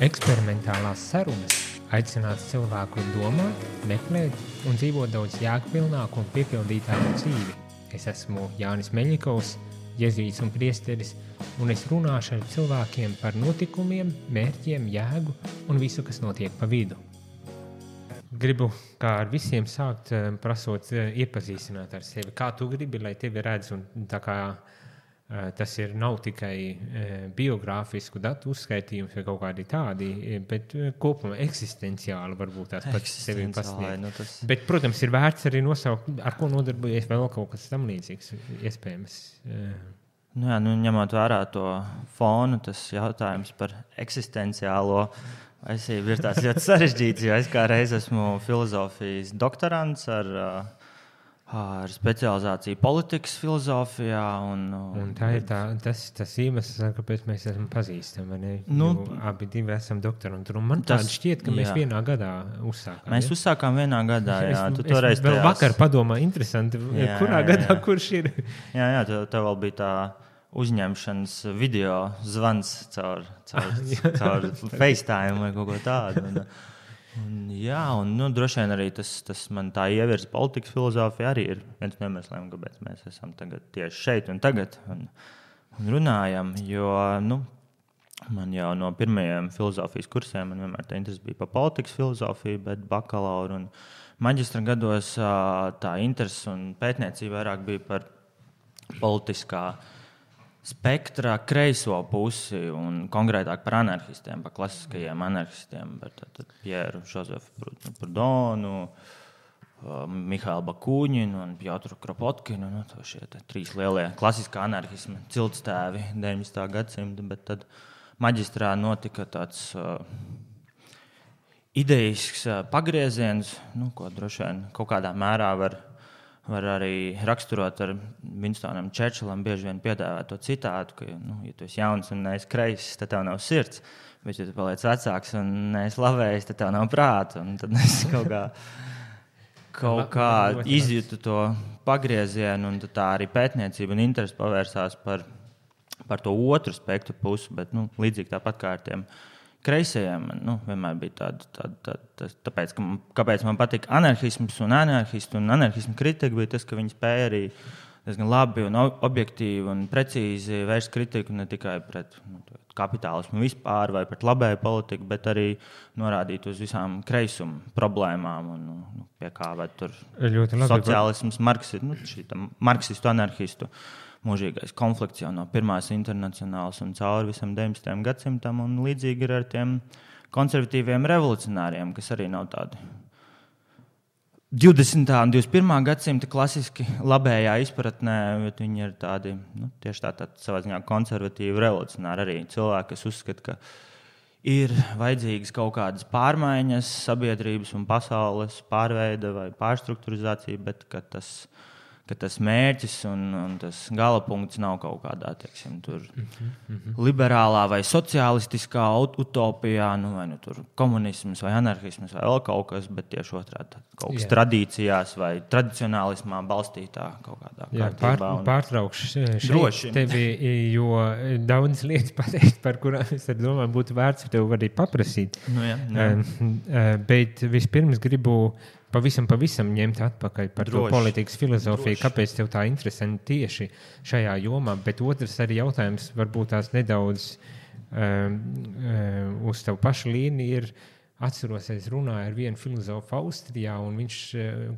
Eksperimentālās sarunas aicināts cilvēku domāt, meklēt un dzīvot daudz jēgpilnāku un piepildītāku dzīvi. Es esmu Jānis Meļņikovs, jezuīts un priesteris, un es runāšu ar cilvēkiem par notikumiem, mērķiem, jēgu un visu, kas notiek pa vidu. Gribu, kā ar visiem sākt, prasot iepazīstināt ar sevi. Kā tu gribi, lai tevi redz, un tā kā tas nav tikai biogrāfisku datu uzskaitījums vai kaut kādi tādi, bet kopumā eksistenciāli varbūt tās pats sevi pasniegt. Bet, protams, ir vērts arī nosaukt, ar ko nodarbojies vēl kaut kas tam līdzīgs, iespējams. Ņemot vērā to fonu, tas jautājums par eksistenciālo esību ir tāds ļoti sarežģīts, jo es kā reiz esmu filozofijas doktorants ar specializāciju politikas filozofijā. Un tā ir tas iemesls, kāpēc mēs esam pazīstami, vai ne? Abi divi esam doktoranti. Man tāda šķiet, ka mēs vienā gadā uzsākām. Mēs uzsākām vienā gadā, jā. Es vēl vakar padomāju, interesanti, kurā gadā kurš ir. Jā, tev vēl bija tā uzņemšanas video zvans caur FaceTime vai kaut ko tādu. Un droši vien arī tas man tā ievirza politikas filozofija arī ir viens no iemesliem, kāpēc mēs esam tagad tieši šeit un tagad un runājam, jo man jau no pirmajiem filozofijas kursiem man vienmēr tā interese bija pa politikas filozofiju, bet bakalaura un maģistra gados tā interese un pētniecība vairāk bija par politiskā spektra kreiso pusi un konkrētāk par anarchistiem, par klasiskajiem anarchistiem, par Pieru Žozefu Proudhonu, Mihailu Bakuņinu un Piotru Kropotkinu. Šie trīs lielie klasiskā anarchisma ciltstēvi 19. gadsimta, bet tad maģistrā notika tāds ideisks pagrieziens, ko droši vien kaut kādā mērā var arī raksturot ar Winstonam Churchillam bieži vien piedāvāto citātu, ka, ja tu esi jauns un neesi kreisis, tad tev nav sirds, bet ja tu paliec vecāks un neesi labējis, tad tev nav prāta. Un tad es kaut kā izjūtu to pagriezienu, un tā arī pētniecība un interesi pavērsās par to otru spektru pusi, bet līdzīgi tāpat kā ar tiem kreisajiem, vienmēr bija tāpēc, kāpēc man patīk anarchisms un anarchismu kritika bija tas, ka viņi spēja arī diezgan labi un objektīvi un precīzi vērst kritiku ne tikai pret kapitālismu vispār vai pret labēju politiku, bet arī norādīt uz visām kreisuma problēmām un pie kā vai tur sociālisms, marksistu, anarchistu mūžīgais konflikts jau no pirmās internacionālas un cauri visam 19. gadsimtam, un līdzīgi ir ar tiem konservatīviem revolucionāriem, kas arī nav tādi 20. un 21. gadsimta klasiski labējā izpratnē, bet viņi ir tādi, tieši tādi savā ziņā konservatīvi revolucionāri arī cilvēki, kas uzskata, ka ir vajadzīgas kaut kādas pārmaiņas, sabiedrības un pasaules pārveide vai pārstrukturizācija, bet ka tas mērķis un tas gala punkts nav kaut kādā, teiksim, tur liberālā vai sociālistiskā utopijā, vai tur komunisms vai anarchisms vai vēl kaut kas, bet tieši otrādi kaut kas tradīcijās vai tradicionālismā balstītā kaut kādā kārtībā. Pārtraukšu tevi, jo daudz lietas pateikt, par kurām es domāju, būtu vērts tev arī paprasīt. Bet vispirms gribu pavisam ņemt atpakaļ par to politikas filozofiju, kāpēc tev tā interesanti tieši šajā jomā, bet otrs arī jautājums varbūt tās nedaudz uz tavu pašu līniju ir, atceros, es runāju ar vienu filozofu Austrijā, un viņš,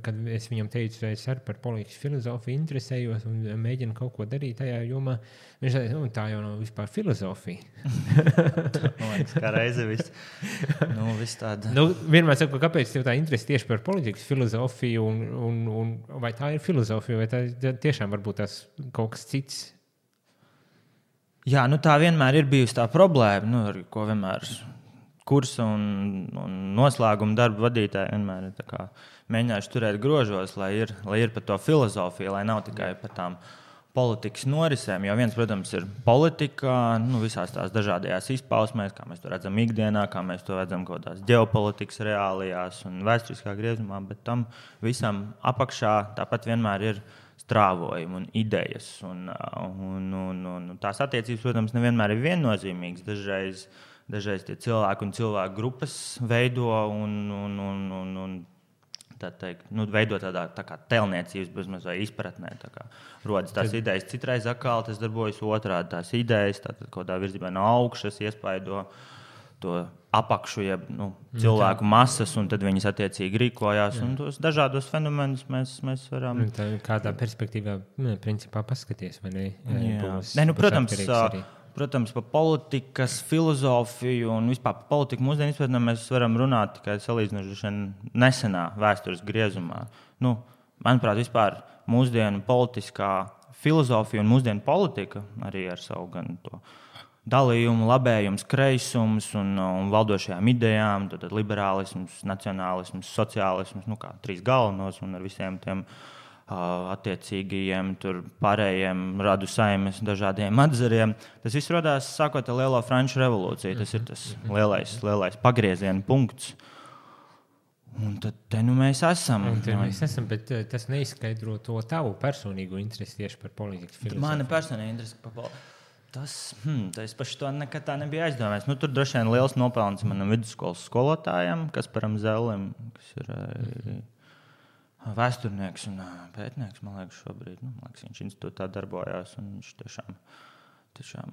kad es viņam teicu, vai es arī par politikas filozofiju interesējos un mēģinu kaut ko darīt tajā jomā, viņš teica, tā jau nav vispār filozofija. Kā reize viss tāda. Vienmēr saku, kāpēc tev tā interese tieši par politikas filozofiju, un vai tā ir filozofija, vai tā tiešām varbūt tās kaut kas cits? Jā, tā vienmēr ir bijusi tā problēma, ar ko vienmēr kursa un noslēguma darba vadītāji vienmēr ir mēģinājuši turēt grožos, lai ir par to filozofiju, lai nav tikai par tām politikas norisēm. Jo viens, protams, ir politika, visās tās dažādajās izpausmēs, kā mēs to redzam ikdienā, kā mēs to redzam kaut kādās ģeopolitikas reālijās un vēsturiskā griezumā, bet tam visam apakšā tāpat vienmēr ir strāvojumi un idejas. Un tās attiecības, protams, nevienmēr ir viennozīmīgas. dažreiz tie cilvēki un cilvēku grupas veido un tā teikt, veido tādā tā kā telniecības bezmaz vai izpratnē. Rodas tās idejas, citreiz atkal tas darbojas otrādi. Tās idejas, tātad kaut kādā virzībā no augšas iespaido to apakšu, jeb cilvēku masas, un tad viņas attiecīgi rīkojās. Un tos dažādos fenomenus mēs varam... Kādā perspektīvā, principā, paskaties, vai ne? Protams, par politikas filozofiju un vispār par politiku mūsdienu izpratnē mēs varam runāt tikai salīdzinoši nesenā vēstures griezumā. Manuprāt, vispār mūsdienu politiskā filozofija un mūsdienu politika arī ar savu gan to dalījumu, labējums, kreisums un valdošajām idejām, tad liberālisms, nacionālisms, sociālisms, kā 3 galvenos un ar visiem tiem attiecīgajiem pārējiem radu saimes dažādiem atzariem. Tas viss radās sākot ar Lielo Franču revolūciju. Tas ir tas lielais pagrieziena punkts. Un tad te mēs esam. Bet tas neizskaidro to tavu personīgo interesi tieši par politikas filozofiju. Mana personīga interese par politiku. Es paši to nekad tā nebija aizdomājis. Tur droši vien liels nopelns manam vidusskolas skolotājam, Kasparam Zellim, kas ir vēsturnieks un pētnieks, man liekas, šobrīd. Viņš institūtā darbojās un viņš tiešām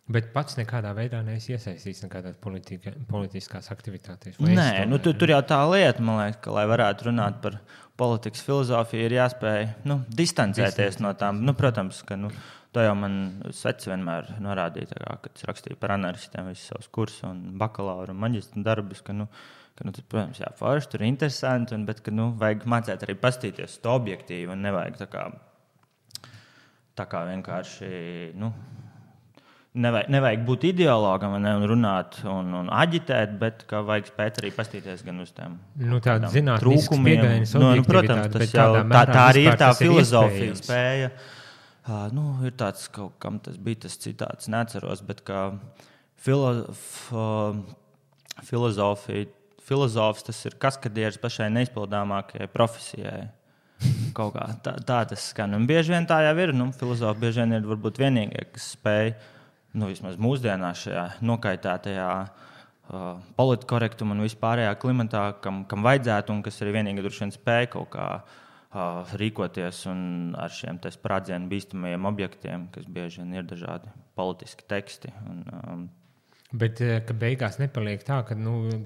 Bet pats nekādā veidā neesi iesaistīts nekādās politiskās aktivitātēs? Nē, tur jau tā lieta, man liekas, ka, lai varētu runāt par politikas filozofiju, ir jāspēj distancēties no tām. Protams, ka to jau man sveci vienmēr norādīja, kad es rakstīju par anarchistiem visus savus kursus un bakalaura un maģistra darbus, ka tas, protams, forši, tur ir interesanti, bet ka vajag mācīt arī pastīties to objektīvi un nevajag tā kā vienkārši, nevajag būt ideologam un runāt un aģitēt, bet ka vajag spēt arī pastīties gan uz tiem trūkumiem. Protams, tas jau tā arī ir tā filozofija spēja. Ir tāds, kaut kam tas bija tas citāts, neatceros, bet kā filozofs tas ir kaskadieris pašai neizpildāmākajai profesijai. Kaut kā tā tas skan. Un bieži vien tā jau ir. Filozofi bieži vien ir varbūt vienīgie, kas spēj, vismaz mūsdienās šajā nokaitētajā politkorektuma un vispārējā klimatā, kam vajadzētu un kas arī vienīgi droši vien spēj kaut kā rīkoties un ar šiem sprādzienu bīstamajiem objektiem, kas bieži vien ir dažādi politiski teksti. Bet ka beigās nepaliek tā, ka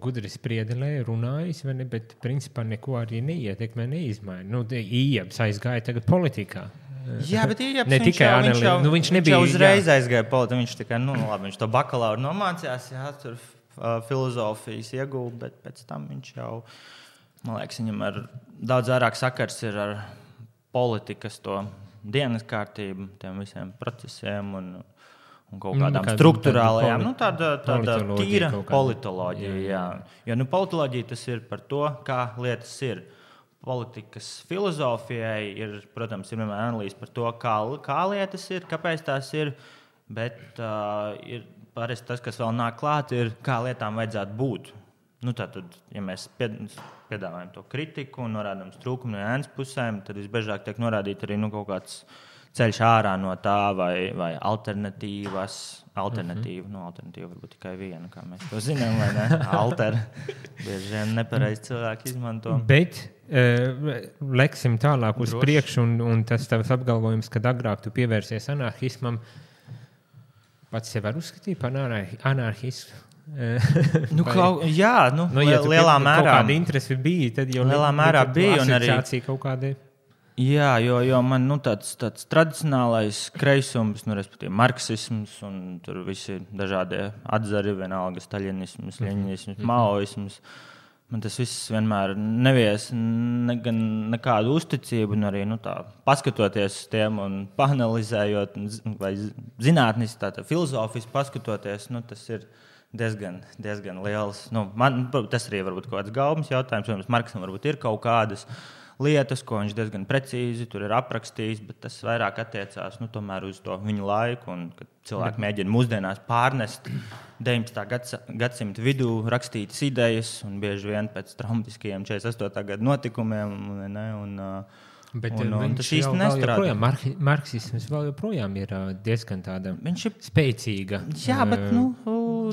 gudri spriedelē runājas, bet principā neko arī neietekmē, neizmaina. Ījabs aizgāja tagad politikā. Jā, bet viņš nebija uzreiz aizgāja politikā. Viņš tikai, viņš to bakalauru nomācījās, tur filozofijas ieguva, bet pēc tam viņš jau... Man liekas, viņam daudz vairāk sakars ir ar politikas to dienas kārtību, tiem visiem procesiem un kaut kādām struktūrālajām. Tāda tīra politoloģija. Jā. Jo politoloģija tas ir par to, kā lietas ir. Politikas filozofijai ir, protams, ir vienmēr analīze par to, kā lietas ir, kāpēc tās ir, bet ir parasti tas, kas vēl nāk klāt, ir kā lietām vajadzētu būt. Tātad, ja mēs piedāvājam to kritiku un norādām trūkumu no ēnas pusēm, tad visbiežāk tiek norādīt arī kaut kāds ceļš ārā no tā vai alternatīva, varbūt tikai viena, kā mēs to zinām, vai ne? Bieži vien nepareizi cilvēki izmanto. Bet leksim tālāk uz priekšu un tas tavs apgalvojums, kad agrāk tu pievērsies anarhismam, pats sev var uzskatīt par anarhistu. Lielā mērā kāda interese bija, tad jau lielā mērā bija un arī kaut kāda. Jā, jo man tāds tradicionālais kreisums, respektīvi marksisms un tur visi dažādie atzari, vienalga staļinisms, ļeņinisms, maoisms. Man tas viss vienmēr nevies nekādu uzticību, un arī paskatoties tiem un paanalizējot, vai zinātnis, tātad filozofiski paskatoties, tas ir diezgan liels. Man tas arī varbūt kaut kāds gaumas jautājums. Protams, Marksam varbūt ir kaut kādas lietas, ko viņš diezgan precīzi tur ir aprakstījis, bet tas vairāk attiecās tomēr uz to viņu laiku, un kad cilvēki mēģina mūsdienās pārnest 19. gadsimta vidū rakstītas idejas, un bieži vien pēc traumatiskajiem 48. gada notikumiem. Bet tas īsti nestrādā. Marksisms vēl joprojām ir diezgan tāda spēcīga. Jā, bet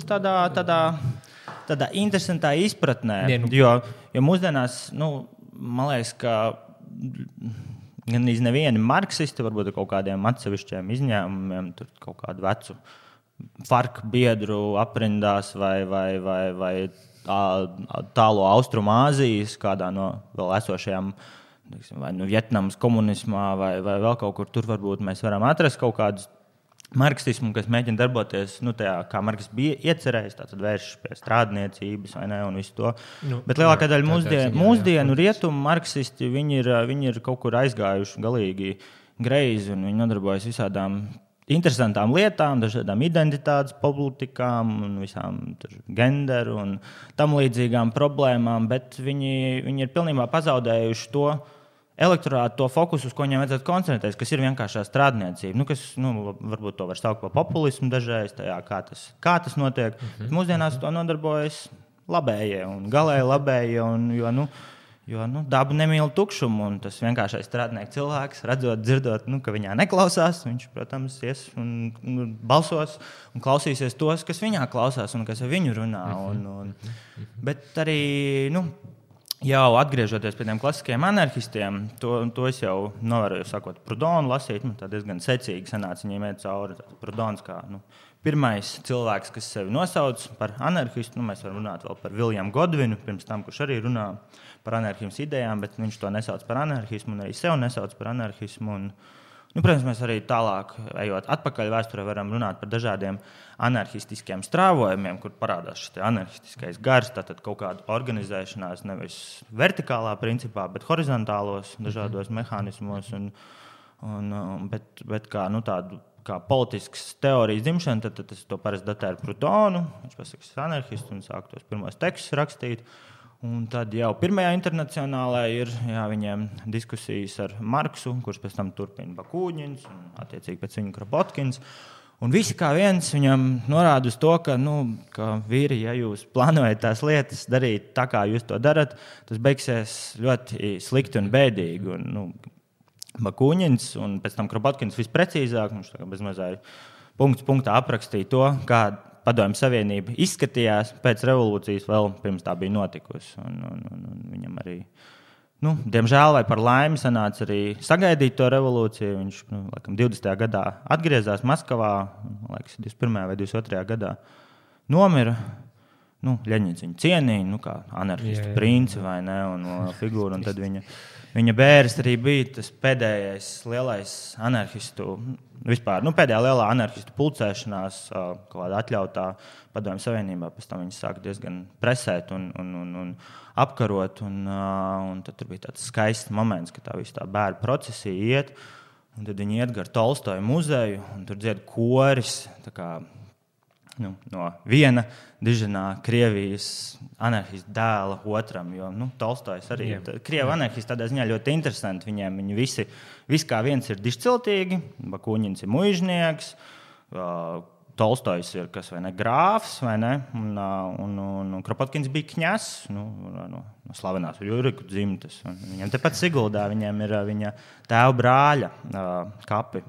tādā interesantā izpratnē. Jo mūsdienās, man liekas, ka gan nevieni marksisti, varbūt ar kaut kādiem atsevišķiem izņēmumiem, tur kaut kādu vecu farku biedru aprindās vai tālo Austrumāzijas, kādā no vēl esošajām, vai Vietnamas komunismā, vai vēl kaut kur tur varbūt mēs varam atrast kaut kādus marksismu, kas mēģina darboties, tajā, kā Marks bija iecerējis, tātad vēršas pie strādniecības, vai ne, un visu to. Bet lielākā daļa mūsdienu rietumu marksisti, viņi ir kaut kur aizgājuši galīgi greizi, un viņi nodarbojas visādām interesantām lietām, dažādām identitātes politikām, un visām genderu un tam līdzīgām problēmām, bet viņi ir pilnībā pazaudējuši to elektorātu, to fokusu, uz ko viņiem vajadzētu koncentrēties, kas ir vienkāršā strādniecība. Kas, varbūt to var saukt par populismu dažreiz, tajā, kā tas notiek. Bet mūsdienās to nodarbojas labējie un galēji labējie, jo daba nemīl tukšumu, un tas vienkāršais strādnieks cilvēks, redzot, dzirdot, ka viņā neklausās, viņš, protams, ies un balsos un klausīsies tos, kas viņā klausās un kas ar viņu runā. Bet arī, jau atgriežoties pie tiem klasiskajiem anarchistiem, to es jau novēroju, sakot, Proudhonu lasīt, tā diezgan secīgi sanāca viņiem iet cauri. Proudhons kā pirmais cilvēks, kas sevi nosauc par anarchistu, mēs varam runāt vēl par Williamu Godwinu, pirms tam, kurš arī runā par anarhismas idejām, bet viņš to nesauc par anarhismu un arī sev nesauc par anarhismu. Protams, mēs arī tālāk, ejot atpakaļ vēsturē, varam runāt par dažādiem anarchistiskiem strāvojumiem, kur parādās šis anarchistiskais gars, tātad kaut kāda organizēšanās nevis vertikālā principā, bet horizontālos dažādos mehānismos, bet kā politisks teorijas dzimšana, tad es to parasti datēju ar Proudhonu, viņš pasaka, es esmu anarchists un sāk tos pirmos tekstus rakstīt. Un tad jau pirmajā internacionālā ir viņiem diskusijas ar Marksu, kurš pēc tam turpina Bakuņins un attiecīgi pēc viņa Kropotkins. Un visi kā viens viņam norāda uz to, ka vīri, ja jūs plānojat tās lietas darīt tā, kā jūs to darat, tas beigsies ļoti slikti un bēdīgi. Bakuņins un pēc tam Kropotkins visprecīzāk, viņš bezmazāji punkts punktā aprakstīja to, kā Padomju Savienība izskatījās pēc revolūcijas vēl pirms tā bija notikusi. Un viņam arī, diemžēl vai par laimi, sanāca arī sagaidīt to revolūciju. Viņš, laikam, 20. gadā atgriezās Maskavā, laikam, 21. vai 22. gadā nomira. Ļeņins viņu cienīja, kā anarchistu princi vai ne, un figūru, un tad viņa bēris arī bija tas pēdējais lielais anarchistu, vispār, pēdējā lielā anarchistu pulcēšanās, kāda atļautā Padomju Savienībā, pēc tam viņas sāka diezgan presēt un apkarot, un tad tur bija tāds skaists moments, ka tā visa tā bēru procesija iet, un tad viņi iet gar Tolstoja muzeju, un tur dzied koris, tā kā, no viena diženā Krievijas anarchistu dēla otram, jo Tolstojs arī Krievu anarchisti tādā ziņā ļoti interesanti. Viņi visi kā viens ir dižciltīgi, Bakuņins ir muižnieks, Tolstojs ir kas vai ne grāfs, vai ne, un Kropotkins bija kņazs, no slavenās Juriku dzimtes. Viņam tepat Siguldā, viņam ir viņa tēva brāļa kapi,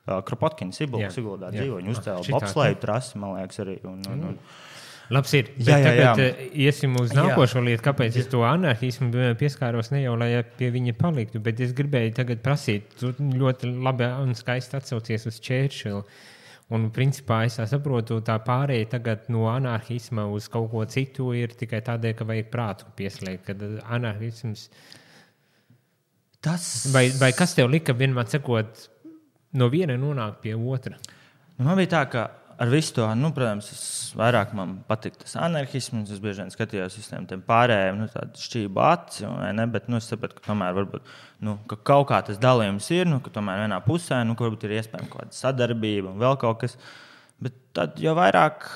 Kropotkins Siguldā dzīvo, viņi uzcēla bobsleju trasi, man liekas, arī. Labs ir, bet tagad iesim uz nākošo lietu, kāpēc es to anarchismu pieskāros ne jau, lai pie viņa paliktu, bet es gribēju tagad prasīt, tu ļoti labi un skaisti atsaucies uz Churchillu, un principā es saprotu, tā pārēja tagad no anarchisma uz kaut ko citu ir tikai tādēļ, ka vajag prātu pieslēgt, kad anarchisms... Vai kas tev lika vienmēr sekot no viena nonāk pie otra? Man bija tā, ka ar visu to, protams, vairāk man patīk tas anarchisms, es bieži vien skatījos uz tiem pārējiem, tādu šķību aci, bet, es sapratu, ka tomēr varbūt, ka kaut kā tas dalījums ir, ka tomēr vienā pusē, ka varbūt ir iespējama kaut kāda sadarbība un vēl kaut kas, bet tad jau vairāk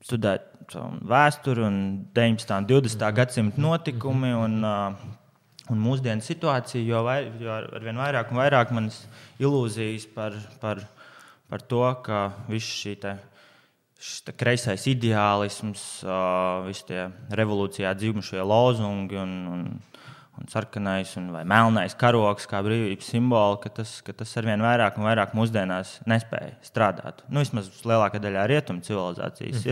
studēt vēsturi un 19. un 20. gadsimta notikumi un mūsdienu situāciju, jo arvien vairāk un vairāk manas ilūzijas par to, ka viss šis kreisais ideālisms, visi tie revolūcijā dzīvušie lozungi un un sarkanais vai melnais karoks kā brīvības simboli, ka tas arvien vairāk un vairāk mūsdienās nespēja strādāt. Vismaz lielākā daļā rietumu civilizācijas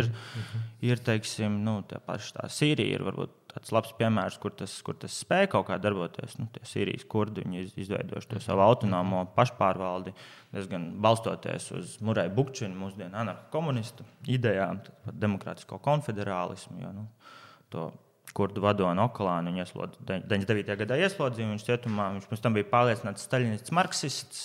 ir teiksim, tā paša tā Sīrija ir varbūt tāds labs piemērs, kur tas spēja kaut kā darboties. Tie Sīrijas kurdi, viņi izveidojuši to savu autonomo pašpārvaldi, diezgan balstoties uz Murai Bukčinu, mūsdienu anarcho-komunistu idejām, par demokrātisko konfederālismu, jo to kurdu vadoni Okalānu viņa 99. gadā ieslodzīja, viņš cietumā, viņš pirms tam bija pārliecināts staļinists marksists,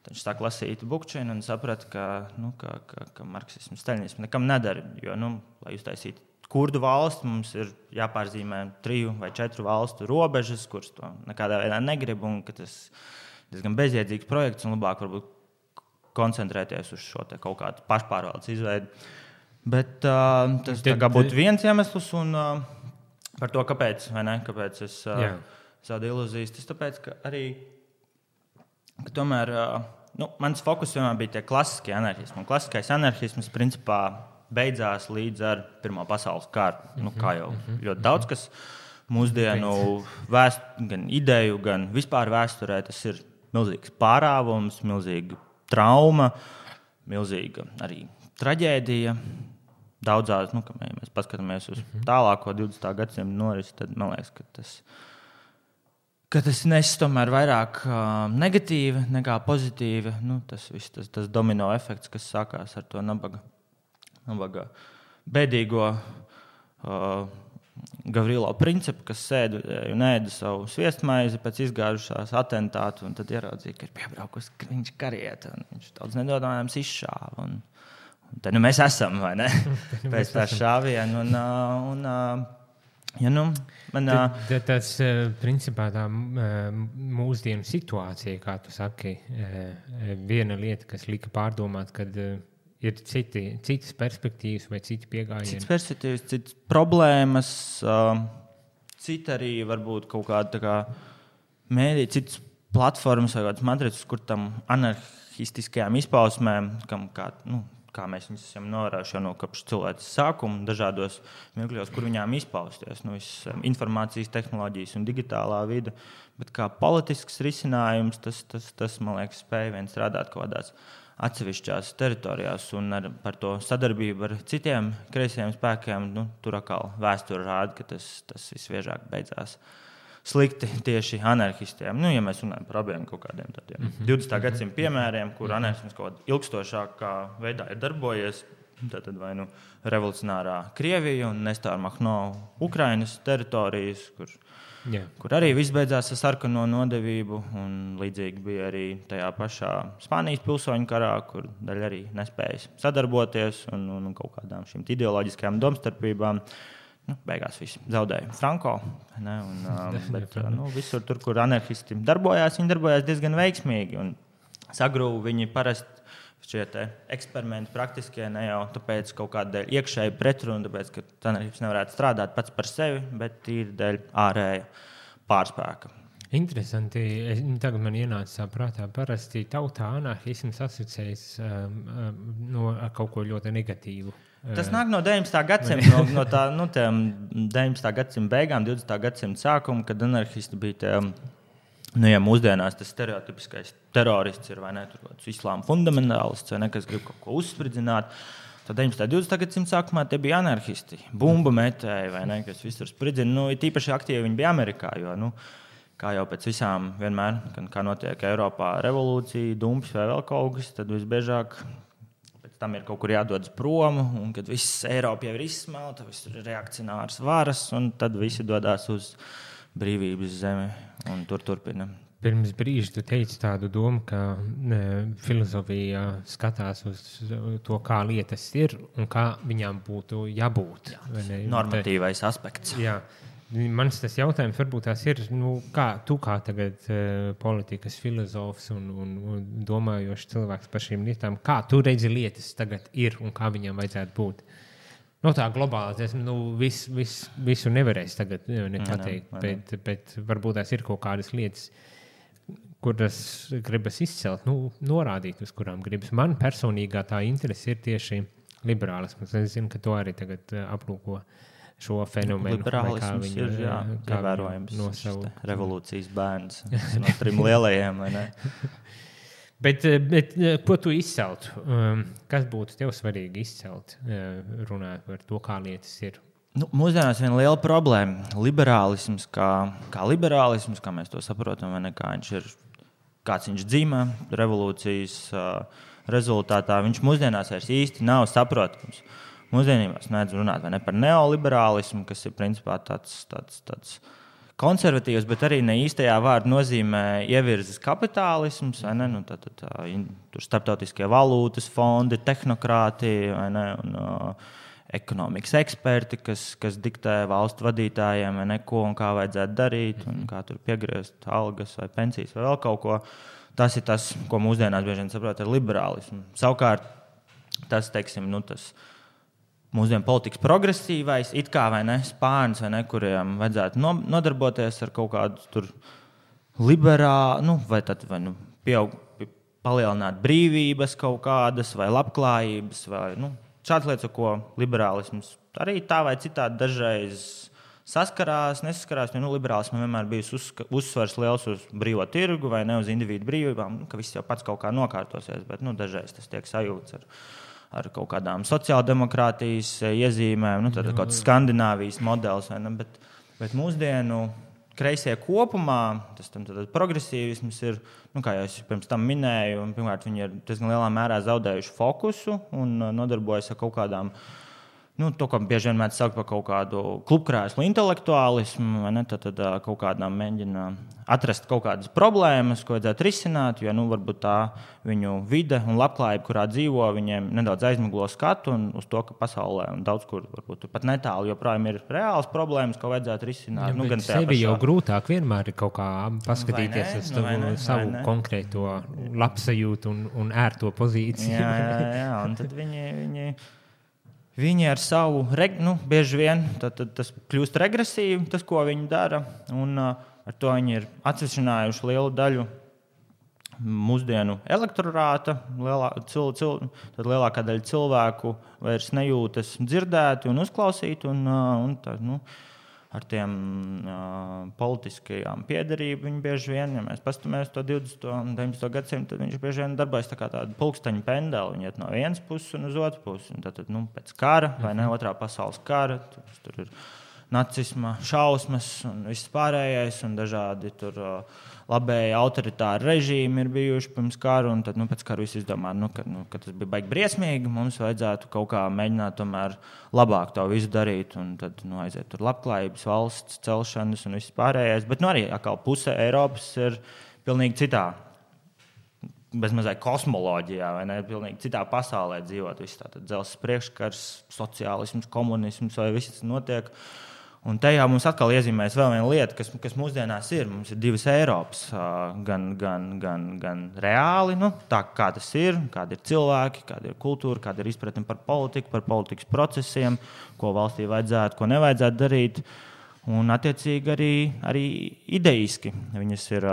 viņš sāk lasīt Bukčinu un saprata, ka marksismu, staļinismu nekam nedara, jo, lai uztaisītu kurdu valsti, mums ir jāpārzīmē 3 vai 4 valstu robežas, kuras to nekādā veidā negrib, un ka tas diezgan bezjēdzīgs projekts, un labāk varbūt koncentrēties uz šo te kaut kādu pašpārvaldes izveidi. Bet tas tā kā būtu viens iemesls, un par to, kāpēc es zaudu ilūzijas, tas tāpēc, ka arī ka tomēr mans fokus vienmēr bija tie klasiskie anarchismi. Un klasiskais anarchisms principā beidzās līdz ar Pirmo pasaules karu. Kā jau ļoti daudz, kas mūsdienu gan ideju, gan vispār vēsturē, tas ir milzīgs pārāvums, milzīga trauma, milzīga arī traģēdija. Daudzās, ja mēs paskatāmies uz tālāko 20. gadsimta norisi, tad man liekas, ka tas nes tomēr vairāk negatīvi nekā pozitīvi. Tas viss, tas domino efekts, kas sākās ar to nabaga bēdīgo Gavrilo principu, kas sēda un ēda savu sviestmaizi pēc izgājušās atentātu, un tad ieraudzīja, ka ir piebraukusi viņš karieta, un viņš daudz nedodājums izšāva. Tad mēs esam, vai ne? Pēc tā šāviena. Tas principā tā mūsdienu situācija, kā tu saki, viena lieta, kas lika pārdomāt, kad ir citas perspektīvas vai citi piegājieni. Citas perspektīvas, citas problēmas, cita arī varbūt kaut kāda mēdī, citas platformas vai kādas matricas, kur tam anarchistiskajām izpausmēm, kā mēs viņus esam novērojuši jau no kopš cilvēces sākuma, dažādos mirkļos, kur viņām izpausties. Informācijas tehnoloģijas un digitālā vide, bet kā politisks risinājums, tas man liekas, spēja vien strādāt kaut kādās atsevišķās teritorijās un par to sadarbību ar citiem kreisajiem spēkiem. Tur atkal vēsture rāda, ka tas visbiežāk beidzās slikti tieši anarchistiem. Ja mēs runājam par abiem kaut kādiem tādiem 20. gadsimta piemēriem, kur anarchisms kaut kādā ilgstošākā veidā ir darbojies, tad vai revolucionārā Krievija un Nestor Mahno Ukrainas teritorijas, kur arī viss beidzās ar sarkano nodevību, un līdzīgi bija arī tajā pašā Spānijas pilsoņu karā, kur daļa arī nespējas sadarboties un kaut kādām šīm ideoloģiskajām domstarpībām. Beigās visi zaudēja Franko. Bet visur tur, kur anarchisti darbojās, viņi darbojās diezgan veiksmīgi. Un sagrūva viņi parasti šie eksperimenti praktiskie ne jau tāpēc kaut kāda iekšēja pretruna, tāpēc, ka anarchisms nevarētu strādāt pats par sevi, bet tīri dēļ ārēja pārspēka. Interesanti. Tagad man ienāca prātā, parasti tautā anarchisms asociējas ar kaut ko ļoti negatīvu. Tas nāk no 19. gadsimta, no 19. gadsimta beigām, 20. gadsimta sākuma, kad anarchisti bija mūsdienās tas stereotipiskais terorists ir, vai ne, tur kāds islāma fundamentālists, vai ne, kas grib kaut ko uzspridzināt. Tad 19. 20. gadsimta sākumā tie bija anarchisti, bumbu metēji, vai ne, kas visur spridzina. Tīpaši aktīvi viņi bija Amerikā, jo, kā jau pēc visām vienmēr, kā notiek Eiropā revolūcija, dumpis vai vēl kaut kas, tad visbiežāk tam ir kaut kur jādodas prom, un kad viss Eiropa jau ir izsmelta, visur ir reakcionārs varas, un tad visi dodas uz brīvības zemi un tur turpina. Pirms brīža tu teici tādu domu, ka filozofija skatās uz to, kā lietas ir un kā viņām būtu jābūt. Normatīvais aspekts. Jā. Mans tas jautājums varbūt tās ir, tu kā tagad politikas filozofs un domājošs cilvēks par šīm lietām, kā tu redzi lietas tagad ir un kā viņām vajadzētu būt? Tā globāli, visu nevarēs tagad pateikt, bet varbūt tās ir kaut kādas lietas, kuras gribas izcelt, norādīt, uz kurām gribas. Man personīgā tā interese ir tieši liberālisms. Es zinu, ka to arī tagad aplūko šo fenomenu. Liberālisms ir ievērojams revolūcijas bērns no 3 lielajiem, vai ne? Bet ko tu izceltu? Kas būtu tev svarīgi izcelt, runājot par to, kā lietas ir? Mūsdienās viena liela problēma. Liberālisms, kā liberālisms, kā mēs to saprotam, vai ne, kāds viņš dzima revolūcijas rezultātā, viņš mūsdienās vairs īsti nav saprotams. Mūsdienībās needz runāt vai ne par neoliberālismu, kas ir principā tāds konservatīvs, bet arī ne īstajā vārda nozīmē ievirzes kapitālisms, vai ne? Tur starptautiskie valūtas fondi, tehnokrātija, vai ne? Un ekonomikas eksperti, kas diktē valstu vadītājiem, vai ne, ko un kā vajadzētu darīt, un kā tur piegriezt algas vai pensijas vai vēl kaut ko. Tas ir tas, ko mūsdienās bieži vien saprot ar liberālismu. Savukārt, tas, teiksim, tas mūsdienu politikas progresīvais, it kā vai ne, spārns, vai ne, kuriem vajadzētu nodarboties ar kaut kādu tur liberālu, vai palielināt brīvības kaut kādas, vai labklājības, vai, šādas lietas, ar ko liberālisms arī tā vai citādi dažreiz saskarās, nesaskarās. Liberālismam vienmēr bijis uzsvars liels uz brīvo tirgu vai ne uz individu brīvībām, ka viss jau pats kaut kā nokārtosies, bet dažreiz tas tiek sajūts ar kaut kādām sociāldemokrātijas iezīmēm, tad kaut kāds Skandināvijas modelis, vai ne, bet mūsdienu kreisie kopumā, tas progresīvisms ir, kā jau es pirms tam minēju, pirmkārt, viņi ir diezgan lielā mērā zaudējuši fokusu un nodarbojas ar kaut kādām, to, ko bieži vien mēdz saukt par kaut kādu klubkrēslu intelektuālismu, vai ne, tad kaut kādām mēģina atrast kaut kādas problēmas, ko vajadzētu risināt, jo, varbūt tā viņu vide un labklājība, kurā dzīvo, viņiem nedaudz aizmiglo skatu un uz to, ka pasaulē un daudz kur, varbūt pat netālu, joprojām ir reāls problēmas, ko vajadzētu risināt. Bet sevi jau grūtāk vienmēr ir kaut kā paskatīties uz savu konkrēto labsajūtu un ērto pozīciju. Jā, un tad viņi ar savu, bieži vien tas kļūst regresīvi, tas, ko viņi dara, un ar to viņi ir atsvešinājuši lielu daļu mūsdienu elektorāta. Tad lielākā daļa cilvēku vairs nejūtas dzirdēti un uzklausīti, un ar tiem politiskajām piederību viņi bieži vien, ja mēs paskatāmies to 20. un 19. gadsimtu, tad viņš bieži vien darbojas tā kā tāda pulksteņa pendeli. Viņi iet no vienas puses un uz otru pusi. Un tad pēc kara, vai ne, otrā pasaules kara, tur ir nacisma šausmas un viss pārējais, un dažādi tur labēji autoritāri režīmi ir bijuši pirms kara, un tad pēc kara viss izdomā, ka tas bija baigi briesmīgi, mums vajadzētu kaut kā mēģināt tomēr labāk to visu darīt, un tad aiziet tur labklājības valsts celšanas un viss pārējais, bet arī atkal puse Eiropas ir pilnīgi citā, bezmazliet kosmoloģijā, vai ne, pilnīgi citā pasaulē dzīvot, viss tātad dzelzs priekškars, sociālisms, komunisms, vai viss notiek. Un tajā mums atkal iezīmēs vēl viena lieta, kas mūsdienās ir. Mums ir 2 Eiropas, gan reāli, tā kā tas ir, kādi ir cilvēki, kāda ir kultūra, kāda ir izpratne par politiku, par politikas procesiem, ko valstī vajadzētu, ko nevajadzētu darīt. Un attiecīgi arī ideiski. Viņas ir,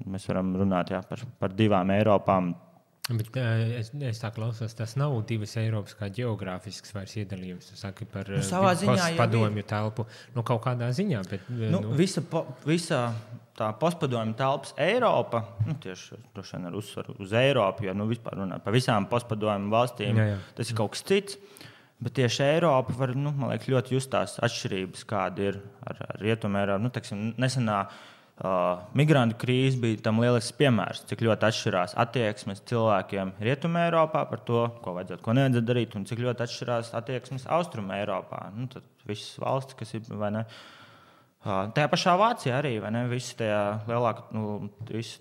mēs varam runāt par 2 Eiropām. Bet es tā klausos, tas nav 2 Eiropas kā geogrāfisks vairs iedalījums. Tu saki par postpadomju telpu. Kaut kādā ziņā. Bet, visa tā postpadomju telpas Eiropa, tieši droši vien ar uzsvaru uz Eiropu, jo vispār runāt par visām postpadomju valstīm, tas ir kaut kas cits. Bet tieši Eiropa var, man liekas, ļoti just tās atšķirības, kāda ir ar Rietumu Eiropu. Nesenā migrantu krīze bija tam lielisks piemērs, cik ļoti atšķirās attieksmes cilvēkiem Rietumē Eiropā par to, ko vajadzētu, ko nevajadzētu darīt, un cik ļoti atšķirās attieksmes Austrumē Eiropā. Tad visas valstis, kas ir, vai ne, tajā pašā Vācijā arī, vai ne, visas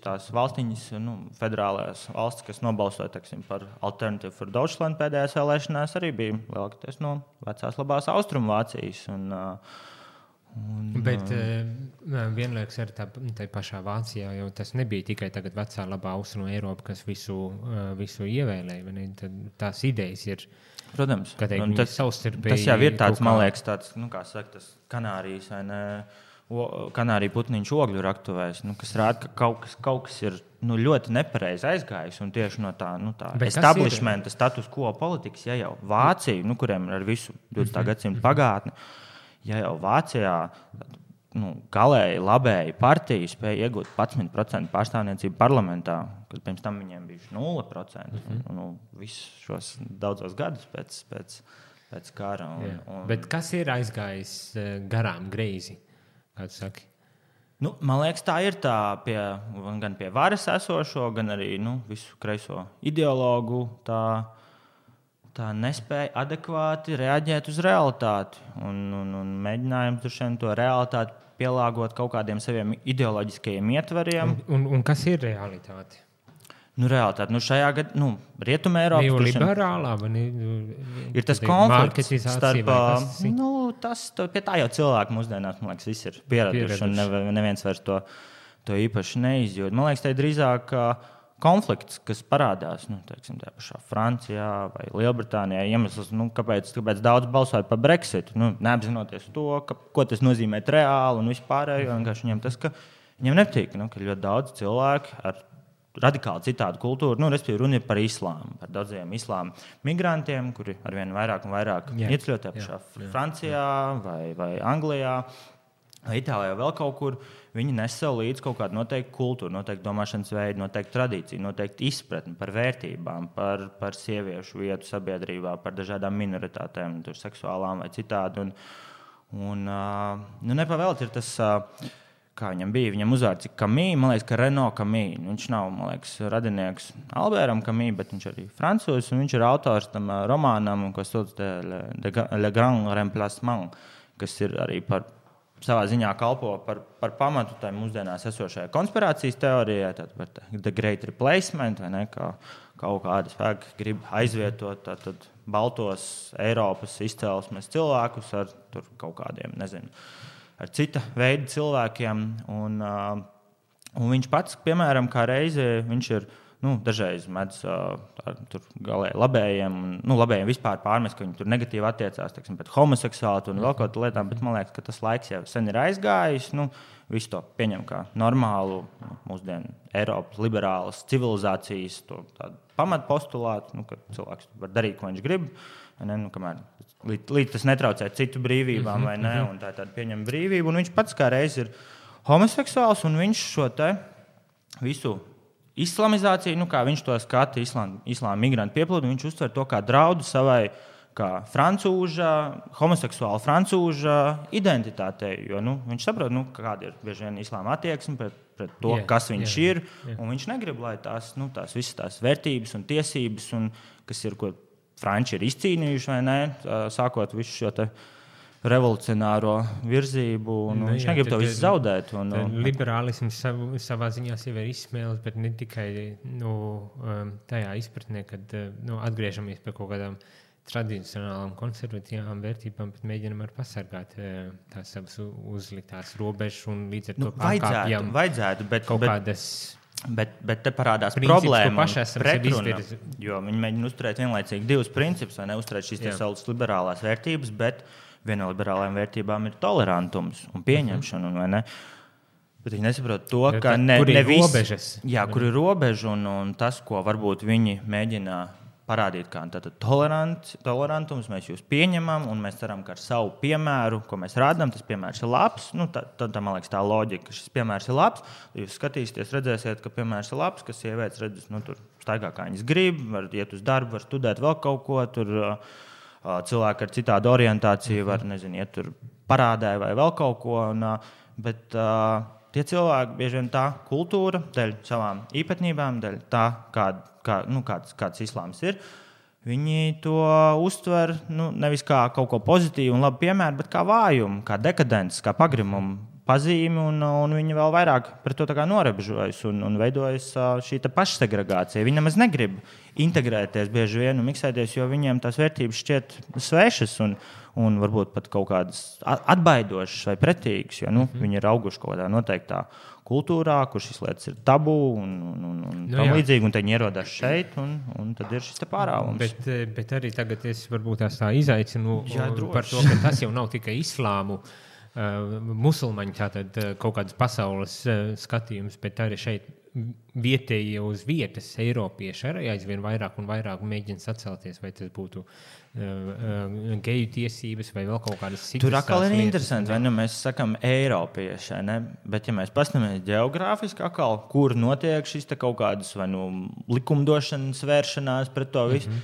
tās valstiņas, federālās valstis, kas nobalsoja, par Alternative for Deutschland pēdējās vēlēšanās, arī bija lielākoties no vecās labās Austrumu Vācijas. Bet vienlaikus arī tā pašā Vācijā, jau tas nebija tikai tagad vecā labā Austrumu Eiropa, kas visu ievēlēja. Tad tās idejas ir, protams, tas savstarpēji. Tas jau ir tāds, man liekas, kā saka, tas Kanārijas vai ne, Kanārija putniņš ogļu raktuvēs, kas rāda, ka kaut kas ir ļoti nepareizi aizgājis, un tieši no tā establishmenta status quo politikas, ja jau Vācija, kuriem ar visu 20. gadsimtu pagātni, ja jau Vācijā galēji labēji partija spēja iegūt 11% pārstāvniecību parlamentā, kad pirms tam viņiem bija 0%. Visus šos daudzos gadus pēc kara. Bet kas ir aizgājis garām greizi, kā tu saki? Man liekas, tā ir gan pie varas esošo, gan arī visu kreiso ideologu tā nespēja adekvāti reaģēt uz realitāti un mēģinājums to realitāti pielāgot kaut kādiem saviem ideoloģiskajiem ietvariem. Un kas ir realitāte? Realitāte. Šajā gadā Rietumē Eiropā neoliberālā ir tas konflikts starp pie tā jau cilvēki mūsdienās, man liekas, visi ir pieraduši un neviens vairs to īpaši neizjūt. Man liekas, tā ir drīzāk konflikts, kas parādās teiksim, tajā pašā Francijā vai Lielbritānijā. Iemesls, kāpēc daudz balsoja par Brexitu, neapzinoties to, ko tas nozīmē reāli un vispārējo. Viņiem tas, ka viņiem nepatīk, ka ļoti daudz cilvēku ar radikāli citādu kultūru, respektīvi runa ir par islāmu, par daudziem islāma migrantiem, kuri arvien vairāk un vairāk ieceļo tajā pašā Francijā vai Anglijā vai Itālijā vēl kaut kur. Viņi nes sev līdzi kaut kādu noteiktu kultūru, noteiktu domāšanas veidu, noteiktu tradīciju, noteiktu izpratni par vērtībām, par sieviešu vietu sabiedrībā, par dažādām minoritātēm, seksuālām vai citādi. Nepavēlti ir tas, kā viņam bija. Viņam uzvārds ir Camus, man liekas, ka Renaud Camus. Viņš nav, man liekas, radinieks Albertam Camus, bet viņš arī francūzs, un viņš ir autors tam romānam, kas sauc Le Grand Remplacement, kas ir arī savā ziņā kalpo par pamatu tai mūsdienās esošajai konspirācijas teorijai, par The Great Replacement, vai ne, kā kaut kādi spēki grib aizvietot baltos Eiropas izcelsmes cilvēkus ar kaut kādiem, ar cita veida cilvēkiem. Un viņš pats, piemēram, kā reizi, viņš ir dažreiz medz galēji labējiem, labējiem vispār pārmest, ka viņi tur negatīvi attiecās, teiksim, pret homoseksuālitāti un vēl kaut kādu lietām, bet man liekas, ka tas laiks jau sen ir aizgājis. Visu to pieņem kā normālu mūsdienu Eiropas liberālas civilizācijas pamatpostulātu, ka cilvēks var darīt, ko viņš grib, kamēr līdz tas netraucē citu brīvībām, vai ne, un tā pieņem brīvību. Un viņš pats kā reiz ir homoseksuāls, un viņš šo visu islamizāciju, kā viņš to skata, islāma migrantu pieplūdu, viņš uztver to kā draudu savai kā homoseksuāla francūža identitātei. Jo viņš saprot, kāda ir bieži vien islāma attieksme pret to, kas viņš ir. Un viņš negrib, lai tās visas tās vērtības un tiesības, kas ir, ko franči ir izcīnījuši, vai ne, sākot visu šo revolucionāro virzību, un viņš negrib to visu zaudēt. Liberālisms savā ziņā jau ir izsmēlis, bet ne tikai tajā izpratnē, kad atgriežamies pie kaut kādām tradicionālām konservatīvām vērtībām, bet mēģinam pasargāt tās savas uzliktās robežas un līdz ar to pārkāpjam kaut kādas. Bet te parādās problēma un pretruna, jo viņi mēģina uzturēt vienlaicīgi divus principus, vai ne, uzturēt šīs savas liberālās vērtības, bet viena no liberālajām vērtībām ir tolerantums un pieņemšana, vai ne? Bet viņi nesaprot to, ka kur ir robežas. Jā, kur ir robeža un tas, ko varbūt viņi mēģina parādīt kā tolerantums, mēs jūs pieņemam un mēs ceram, ka ar savu piemēru, ko mēs rādām, tas piemērs ir labs. Tā man liekas tā loģika, ka šis piemērs ir labs. Jūs skatīsieties, redzēsiet, ka piemērs ir labs, ka sievietes redzes, tur staigā kā viņas grib, var iet uz darbu, var studēt vēl kaut ko, tur cilvēki ar citādu orientāciju var, iet tur parādē vai vēl kaut ko. Bet tie cilvēki bieži vien tā kultūra, dēļ savām īpatnībām, dēļ tā, kāds islāms ir, viņi to uztver nevis kā kaut ko pozitīvu un labu piemēru, bet kā vājumu, kā dekadences, kā pagrimumu pazīmi, un viņi vēl vairāk pret to norebežojas un veidojas šī pašsegregācija. Viņi nemaz negrib integrēties bieži vien un miksēties, jo viņiem tās vērtības šķiet svešas un varbūt pat kaut kādas atbaidošas vai pretīgas, jo viņi ir auguši kaut kādā noteiktā kultūrā, kur šīs lietas ir tabū un tam līdzīgi, un viņi ierodas šeit, un tad ir šis pārāvums. Bet arī tagad es varbūt tā izaicinu par to, ka tas jau nav tikai islāmu musulmaņu tātad kaut kādas pasaules skatījums, bet arī šeit vietējie uz vietas Eiropieši arī aizvien vairāk un vairāk mēģina sacelties, vai tas būtu geju tiesības vai vēl kaut kādas citas. Tur atkal ir lietas, interesanti, vai mēs sakam Eiropieši, ne? Bet ja mēs paskatāmies geogrāfiski atkal, kur notiek šis te kaut kādas vai likumdošanas vēršanās pret to visu,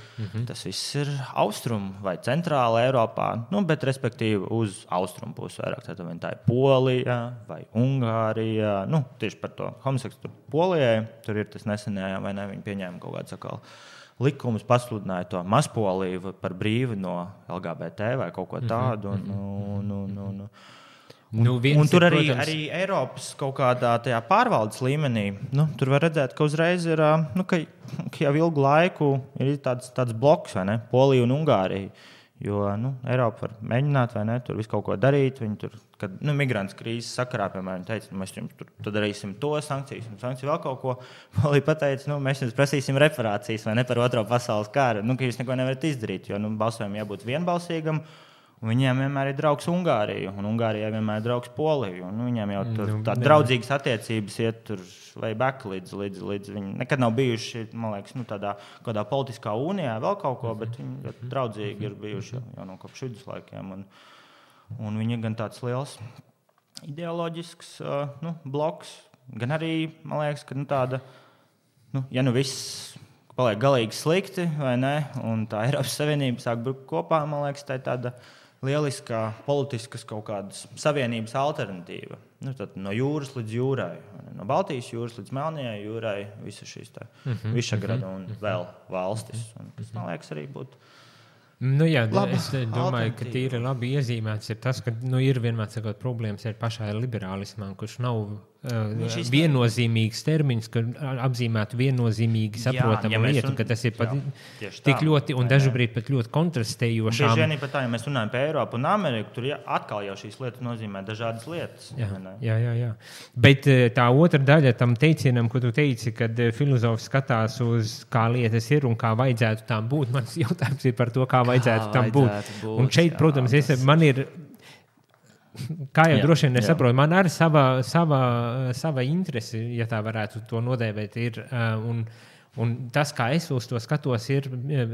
tas viss ir austrumu vai centrāla Eiropā, bet respektīvi uz austrumu pusi vairāk. Tātad vai tā ir Polija vai Ungārija, tieši par to homoseksuālu Polijai, tur ir tas nesenajā, vai ne, viņi pieņēma kaut kāds atkal likumus, pasludināja to mazpoliju par brīvu no LGBT vai kaut ko tādu. Un tur arī Eiropas kaut kādā tajā pārvaldes līmenī, tur var redzēt, ka uzreiz ir, ka jau ilgu laiku ir tāds bloks, vai ne, Polija un Ungārija. Jo Eiropa var mēģināt, vai ne, tur visu kaut ko darīt. Viņi tur, kad migrants krīzes sakarā, piemēram, teica, mēs jums tur darīsim to sankcijas vēl kaut ko. Polija pateica, mēs jums prasīsim reparācijas, vai ne, par otro pasaules kāru. Ka jūs neko nevarat izdarīt, jo balsojumam jābūt vienbalsīgam. Un viņiem vienmēr ir draugs Ungārija, un Ungārijai vienmēr ir draugs Polija. Viņiem jau tur tādas draudzīgas attiecības iet tur vai back līdz. Viņi nekad nav bijuši, man liekas, tādā politiskā unijā vēl kaut ko, bet viņi ļoti draudzīgi ir bijuši jau no kopš viduslaikiem. Un viņi ir gan tāds liels ideoloģisks bloks, gan arī, man liekas, ka tāda, ja viss paliek galīgi slikti, vai ne, un tā Eiropas Savienība sāk brukt kopā, man liekas, tā ir tāda lieliskā politiskas kaut kādas savienības alternatīva. Tad no jūras līdz jūrai, no Baltijas jūras līdz Melnajai jūrai, visas šīs Višegrada un vēl valstis. Un tas, man liekas, arī būtu es domāju, ka tīri labi iezīmēts ir tas, ka ir vienmēr sakot, problēmas ar pašā liberālismā, kurš nav viennozīmīgs termins, ka apzīmētu viennozīmīgi saprotamu lietu, ka tas ir pat tik ļoti un dažubrīd pat ļoti kontrastējošām. Bieži vien pat tā, ja mēs runājam par Eiropu un Ameriku, tur atkal jau šīs lietas nozīmē dažādas lietas. Jā. Bet tā otra daļa tam teicienam, ko tu teici, kad filozofs skatās uz kā lietas ir un kā vajadzētu tām būt, mans jautājums ir par to, kā vajadzētu tam būt. Un šeit, protams, man ir kā jau droši vien nesaprotu, man arī sava interese, ja tā varētu to nodēvēt, ir. Un tas, kā es uz to skatos, ir,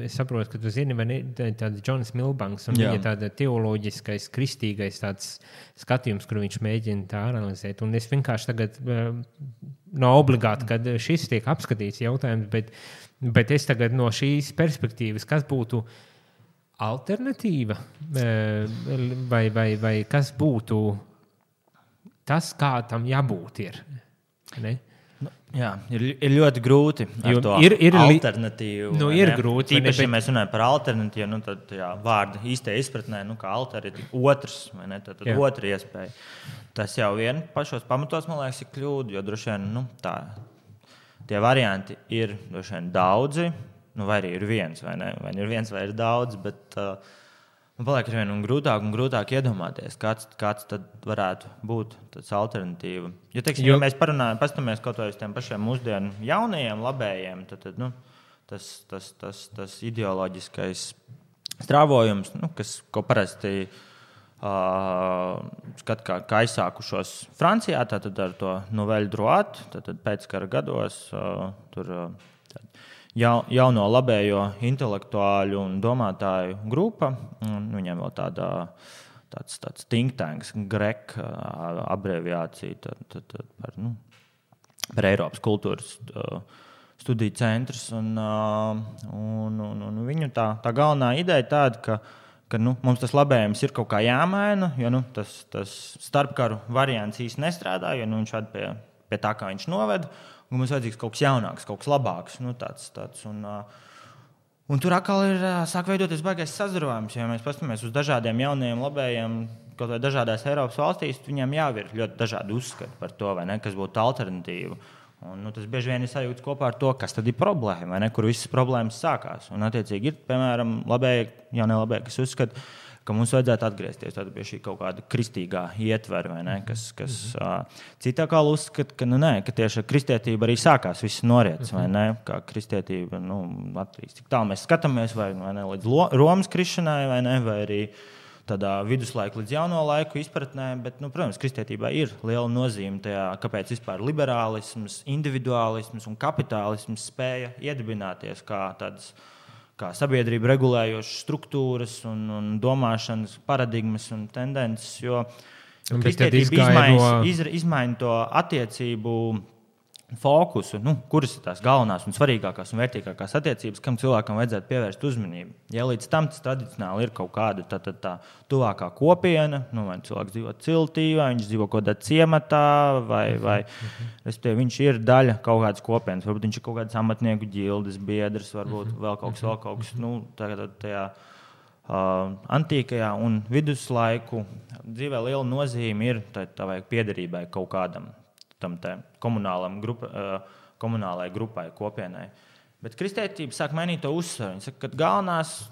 es saprotu, ka tu zini, vai ne, tāds Džons Milbanks un viņa tāda teoloģiskais, kristīgais tāds skatījums, kur viņš mēģina tā analizēt. Un es vienkārši tagad nav obligāti, kad šis tiek apskatīts jautājums, bet es tagad no šīs perspektīvas, kas būtu alternatīva vai kas būtu tas, kā tam jābūt ir? Ne? Jā, ir ļoti grūti ar to alternatīvu. Ir grūti. Īpaši, ja mēs runājam par alternatīvu, tad vārda īstajā izpratnē, kā alternatīva otrs, vai ne, tad otra iespēja. Tas jau vien pašos pamatos, man liekas, ir kļūda, jo droši vien, tie varianti ir droši vien daudzi, vai arī ir viens, vai ne? Vai ir viens, vai ir daudz, bet paliek ar vienu un grūtāk iedomāties, kāds tad varētu būt tāds alternatīva. Jo, teiksim, ja mēs pastamies kaut vai uz tiem pašiem mūsdienu jaunajiem, labējiem, tad tas ideoloģiskais strāvojums, ko parasti skat kā aizsākušos Francijā, tad ar to nouvelle droite, tad pēckara gados tur jauno labējo intelektuāļu un domātāju grupa, un viņiem vēl tāds think tanks, GREC abreviācija par Eiropas kultūras studiju centrs, un viņu tā galvenā ideja tāda, ka mums tas labējums ir kaut kā jāmaina, jo tas starpkaru variants īsti nestrādā, jo viņš ved pie tā, kā viņš noveda. Un mums vajadzīgs kaut kas jaunāks, kaut kas labāks. Tāds. Un tur atkal sāk veidoties baigais sazarojums. Ja mēs paskatāmies uz dažādiem jaunajiem labējiem, kaut vai dažādās Eiropas valstīs, viņiem jau ir ļoti dažādi uzskati par to, vai ne, kas būtu alternatīva. Un, tas bieži vien ir sajūts kopā ar to, kas tad ir problēma, vai ne, kur visas problēmas sākās. Un, attiecīgi, ir, piemēram, jaunie labēji, kas uzskata, ka mums vajadzētu atgriezties pie šī kaut kāda kristīgā ietvera, vai ne, kas citā kā uzskata, ka tieši ar kristietību arī sākās viss norietis, vai ne, kā kristietība, attīstīt. Cik tālu mēs skatāmies, vai ne, līdz Romas krišanai, vai ne, vai arī tādā viduslaiku līdz jauno laiku izpratnē, bet, protams, kristietībā ir liela nozīme tajā, kāpēc vispār liberālisms, individuālisms un kapitālisms spēja iedibināties kā tādas kā sabiedrību regulējošas struktūras un domāšanas paradigmas un tendences, jo kristietība izmaina to attiecību fokusu, kuras ir tās galvenās un svarīgākās un vērtīgākās attiecības, kam cilvēkam vajadzētu pievērst uzmanību. Ja līdz tam tas tradicionāli ir kaut kāda tā tuvākā kopiena, vai cilvēks dzīvo ciltī, vai viņš dzīvo kaut kādā ciematā, vai viņš ir daļa kaut kādas kopienas, varbūt viņš ir kaut kāds amatnieku ģildes biedrs, varbūt vēl kaut kas, tajā antīkajā un viduslaiku dzīvē liela nozīme ir tā vajag piederībai kaut kādam tam komunālai grupai, kopienai. Bet kristietība sāk mainīt to uzsvaru. Viņa saka, ka galvenās,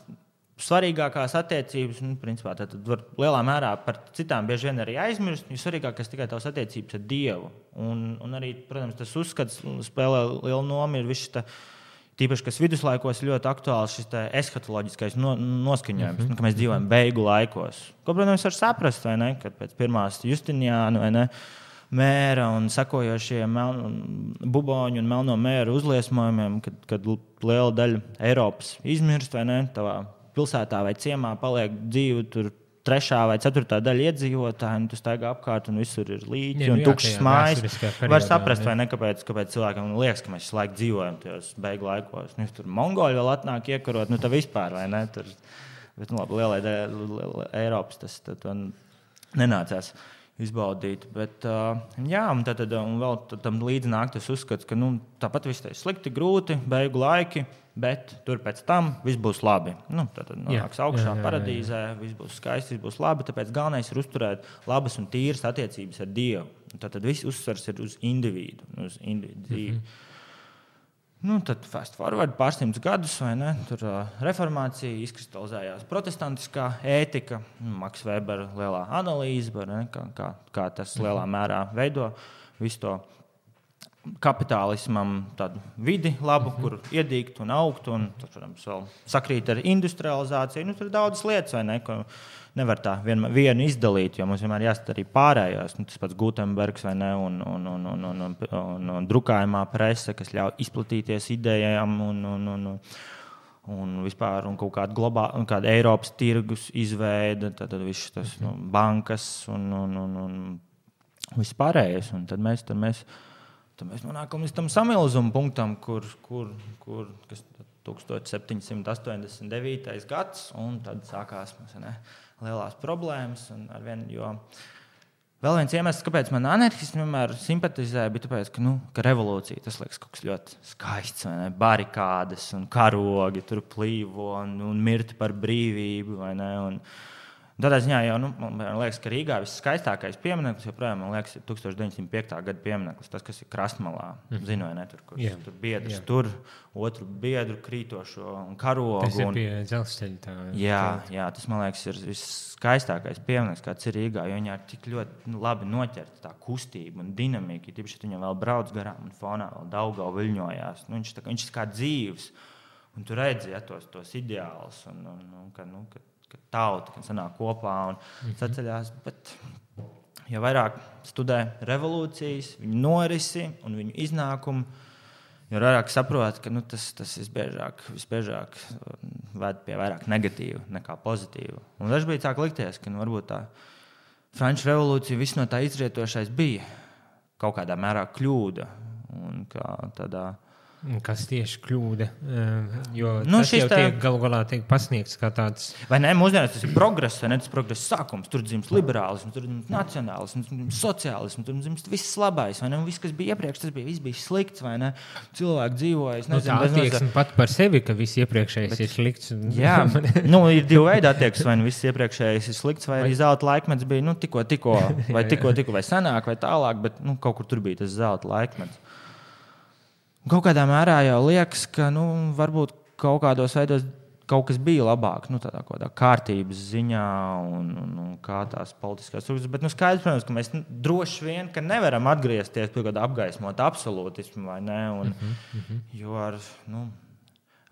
svarīgākās attiecības, principā, tad var lielā mērā par citām bieži vien arī aizmirst, jo svarīgākais tikai tavas attiecības ar Dievu. Un arī, protams, tas uzskats spēlē lielu nomu, ir viss tīpaši, kas viduslaikos ļoti aktuāls šis eskatoloģiskais noskaņojums, ka mēs dzīvojam beigu laikos. Ko, protams, var saprast, vai ne, kad pēc pirmās Justiniāna, vai ne, mēra un sekojošie buboņu un melno mēru uzliesmojumiem, kad liela daļa Eiropas izmirst, vai ne, tavā pilsētā vai ciemā paliek dzīve tur 3. vai 4. daļa iedzīvotāji, un tu staigā apkārt, un visur ir līķi un tukšas mājas. Var saprast, vai ne, kāpēc cilvēkam liekas, ka mēs visu laiku dzīvojam tajos beigu laikos. Tur mongoļi vēl atnāk iekarot, tā vispār, vai ne? Bet, labi, lielai daļai Eiropas tas to nenācās izbaudīt. Bet, un vēl tam līdzi nāk tas uzskats, ka tāpat viss ir slikti, grūti, beigu laiki, bet tur pēc tam viss būs labi. Tad nonāks augšā paradīzē, viss būs skaisti, viss būs labi, tāpēc galvenais ir uzturēt labas un tīras attiecības ar Dievu. Tad viss uzsvars ir uz individu, uz individu dzīvi. Tad fast forward pārsimtus gadus, vai ne? Tur reformācija, izkristalizējās protestantiskā ētika, Maks Webera lielā analīze, kā tas lielā mērā veido visu to kapitālismam tādu vidi labu, kur iedīgt un augt, un tas, protams, vēl sakrīt ar industrializāciju. Tur ir daudzas lietas, vai ne, ko nevar tā vienu izdalīt, jo mums vienmēr jāskat arī pārējās. Tas pats Gutenbergs, vai ne, un drukājumā prese, kas ļauj izplatīties idejām un vispār un kaut kāda Eiropas tirgus izveida, tad viss tas bankas un viss pārējais. Un tad mēs nonākam līdz tam samilzuma punktam, kur 1789. gads, un tad sākās lielās problēmas. Jo vēl viens iemesls, kāpēc man anarchisti vienmēr simpatizē, bija tāpēc, ka revolūcija, tas liekas kaut kas ļoti skaists, vai ne? Barikādes un karogi tur plīvo un mirti par brīvību, vai ne? Tādā ziņā jau, man liekas, ka Rīgā viskaistākais piemineklis joprojām, man liekas, ir 1905. gada piemineklis, tas, kas ir Krastmalā. Zinu, vai ne, tur biedrs tur, otru biedru krītošo un karogu. Tas ir pie dzelzceļa. Jā, tas, man liekas, ir viskaistākais piemineklis, kāds ir Rīgā, jo viņā ir tik ļoti labi noķerta tā kustība un dinamika, tīpaši, ka viņam vēl brauc garām un fonā vēl Daugava viļņojās. Viņš ir kā dzīves, un tu redzi tos ideālus, ka tauta, kad sanāk kopā un saceļās, bet ja vairāk studē revolūcijas, viņu norisi un viņu iznākumu, jo vairāk saprot, ka tas visbiežāk ved pie vairāk negatīvu nekā pozitīvu. Un dažbrīd sāk likties, ka varbūt tā Franču revolūcija viss no tā izrietošais bija kaut kādā mērā kļūda un kā tādā. Kas tieši kļūda, jo tas jau tiek galu galā tiek pasniegts kā tāds. Vai ne, mūsdienās tas ir progress, vai ne, tas progress sākums, tur dzimst liberālisms, tur dzimst nacionālisms, tur dzimst sociālisms, tur dzimst viss labais, vai ne, un viss, kas bija iepriekš, viss bija slikts, vai ne, cilvēki dzīvojas. Tā attieksme pat par sevi, ka viss iepriekšējais ir slikts. Jā, ir divi veidi attieksmes, vai viss iepriekšējais ir slikts, vai arī zelta laikmets bija, tikko, vai senāk, vai tālāk, bet, kaut kur tur bija tas zelta laikmets. Kaut kādā mērā jau liekas, ka varbūt kaut kādos veidos kaut kas bija labāk, tādā kārtības ziņā un kā tās politiskās struktūras. Bet skaidrs, protams, ka mēs droši vien nevaram atgriezties pie kāda apgaismota absolūtisma, vai ne? Jo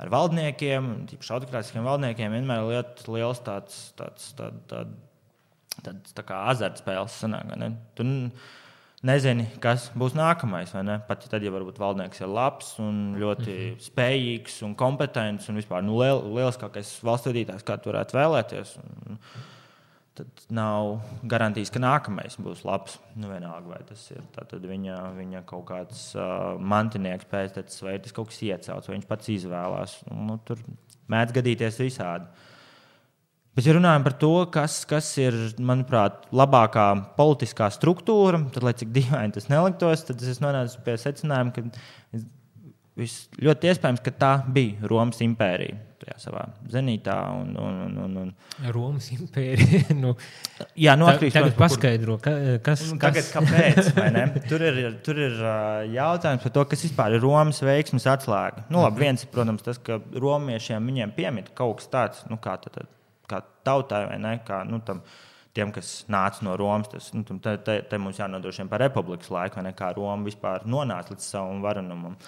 ar valdniekiem, tīpaši autokrātiskiem valdniekiem, vienmēr liels tāds tā kā azartspēles sanāk. Ne? Tu nezini, kas būs nākamais. Vai ne? Pat tad, ja varbūt valdnieks ir labs un ļoti spējīgs un kompetents un vispār lieliskākais valsts vadītājs, kā tu varētu vēlēties. Tad nav garantijas, ka nākamais būs labs. Vienalga, vai tas ir viņa kaut kāds mantinieks pēctecis, vai tas kaut kas iecelts, vai viņš pats izvēlās. Tur mēdz gadīties visādi. Bet, ja runājam par to, kas ir, manuprāt, labākā politiskā struktūra, tad, lai cik dīvaini tas neliktos, tad es nonācu pie secinājuma, ka ļoti iespējams, ka tā bija Romas impērija. Tajā savā zenītā un Romas impērija. Jā, atkarīgs tagad paskaidro, kas... Tagad kāpēc, vai ne? Tur ir jautājums par to, kas vispār ir Romas veiksmes atslēga. Labi, viens ir, protams, tas, ka romiešiem viņiem piemīt kaut kas tāds, kā tautai, vai ne? Kā, tiem, kas nāca no Romas, te mums jānodrošina par republikas laiku, vai ne? Kā Roma vispār nonāca līdz savam varenumam.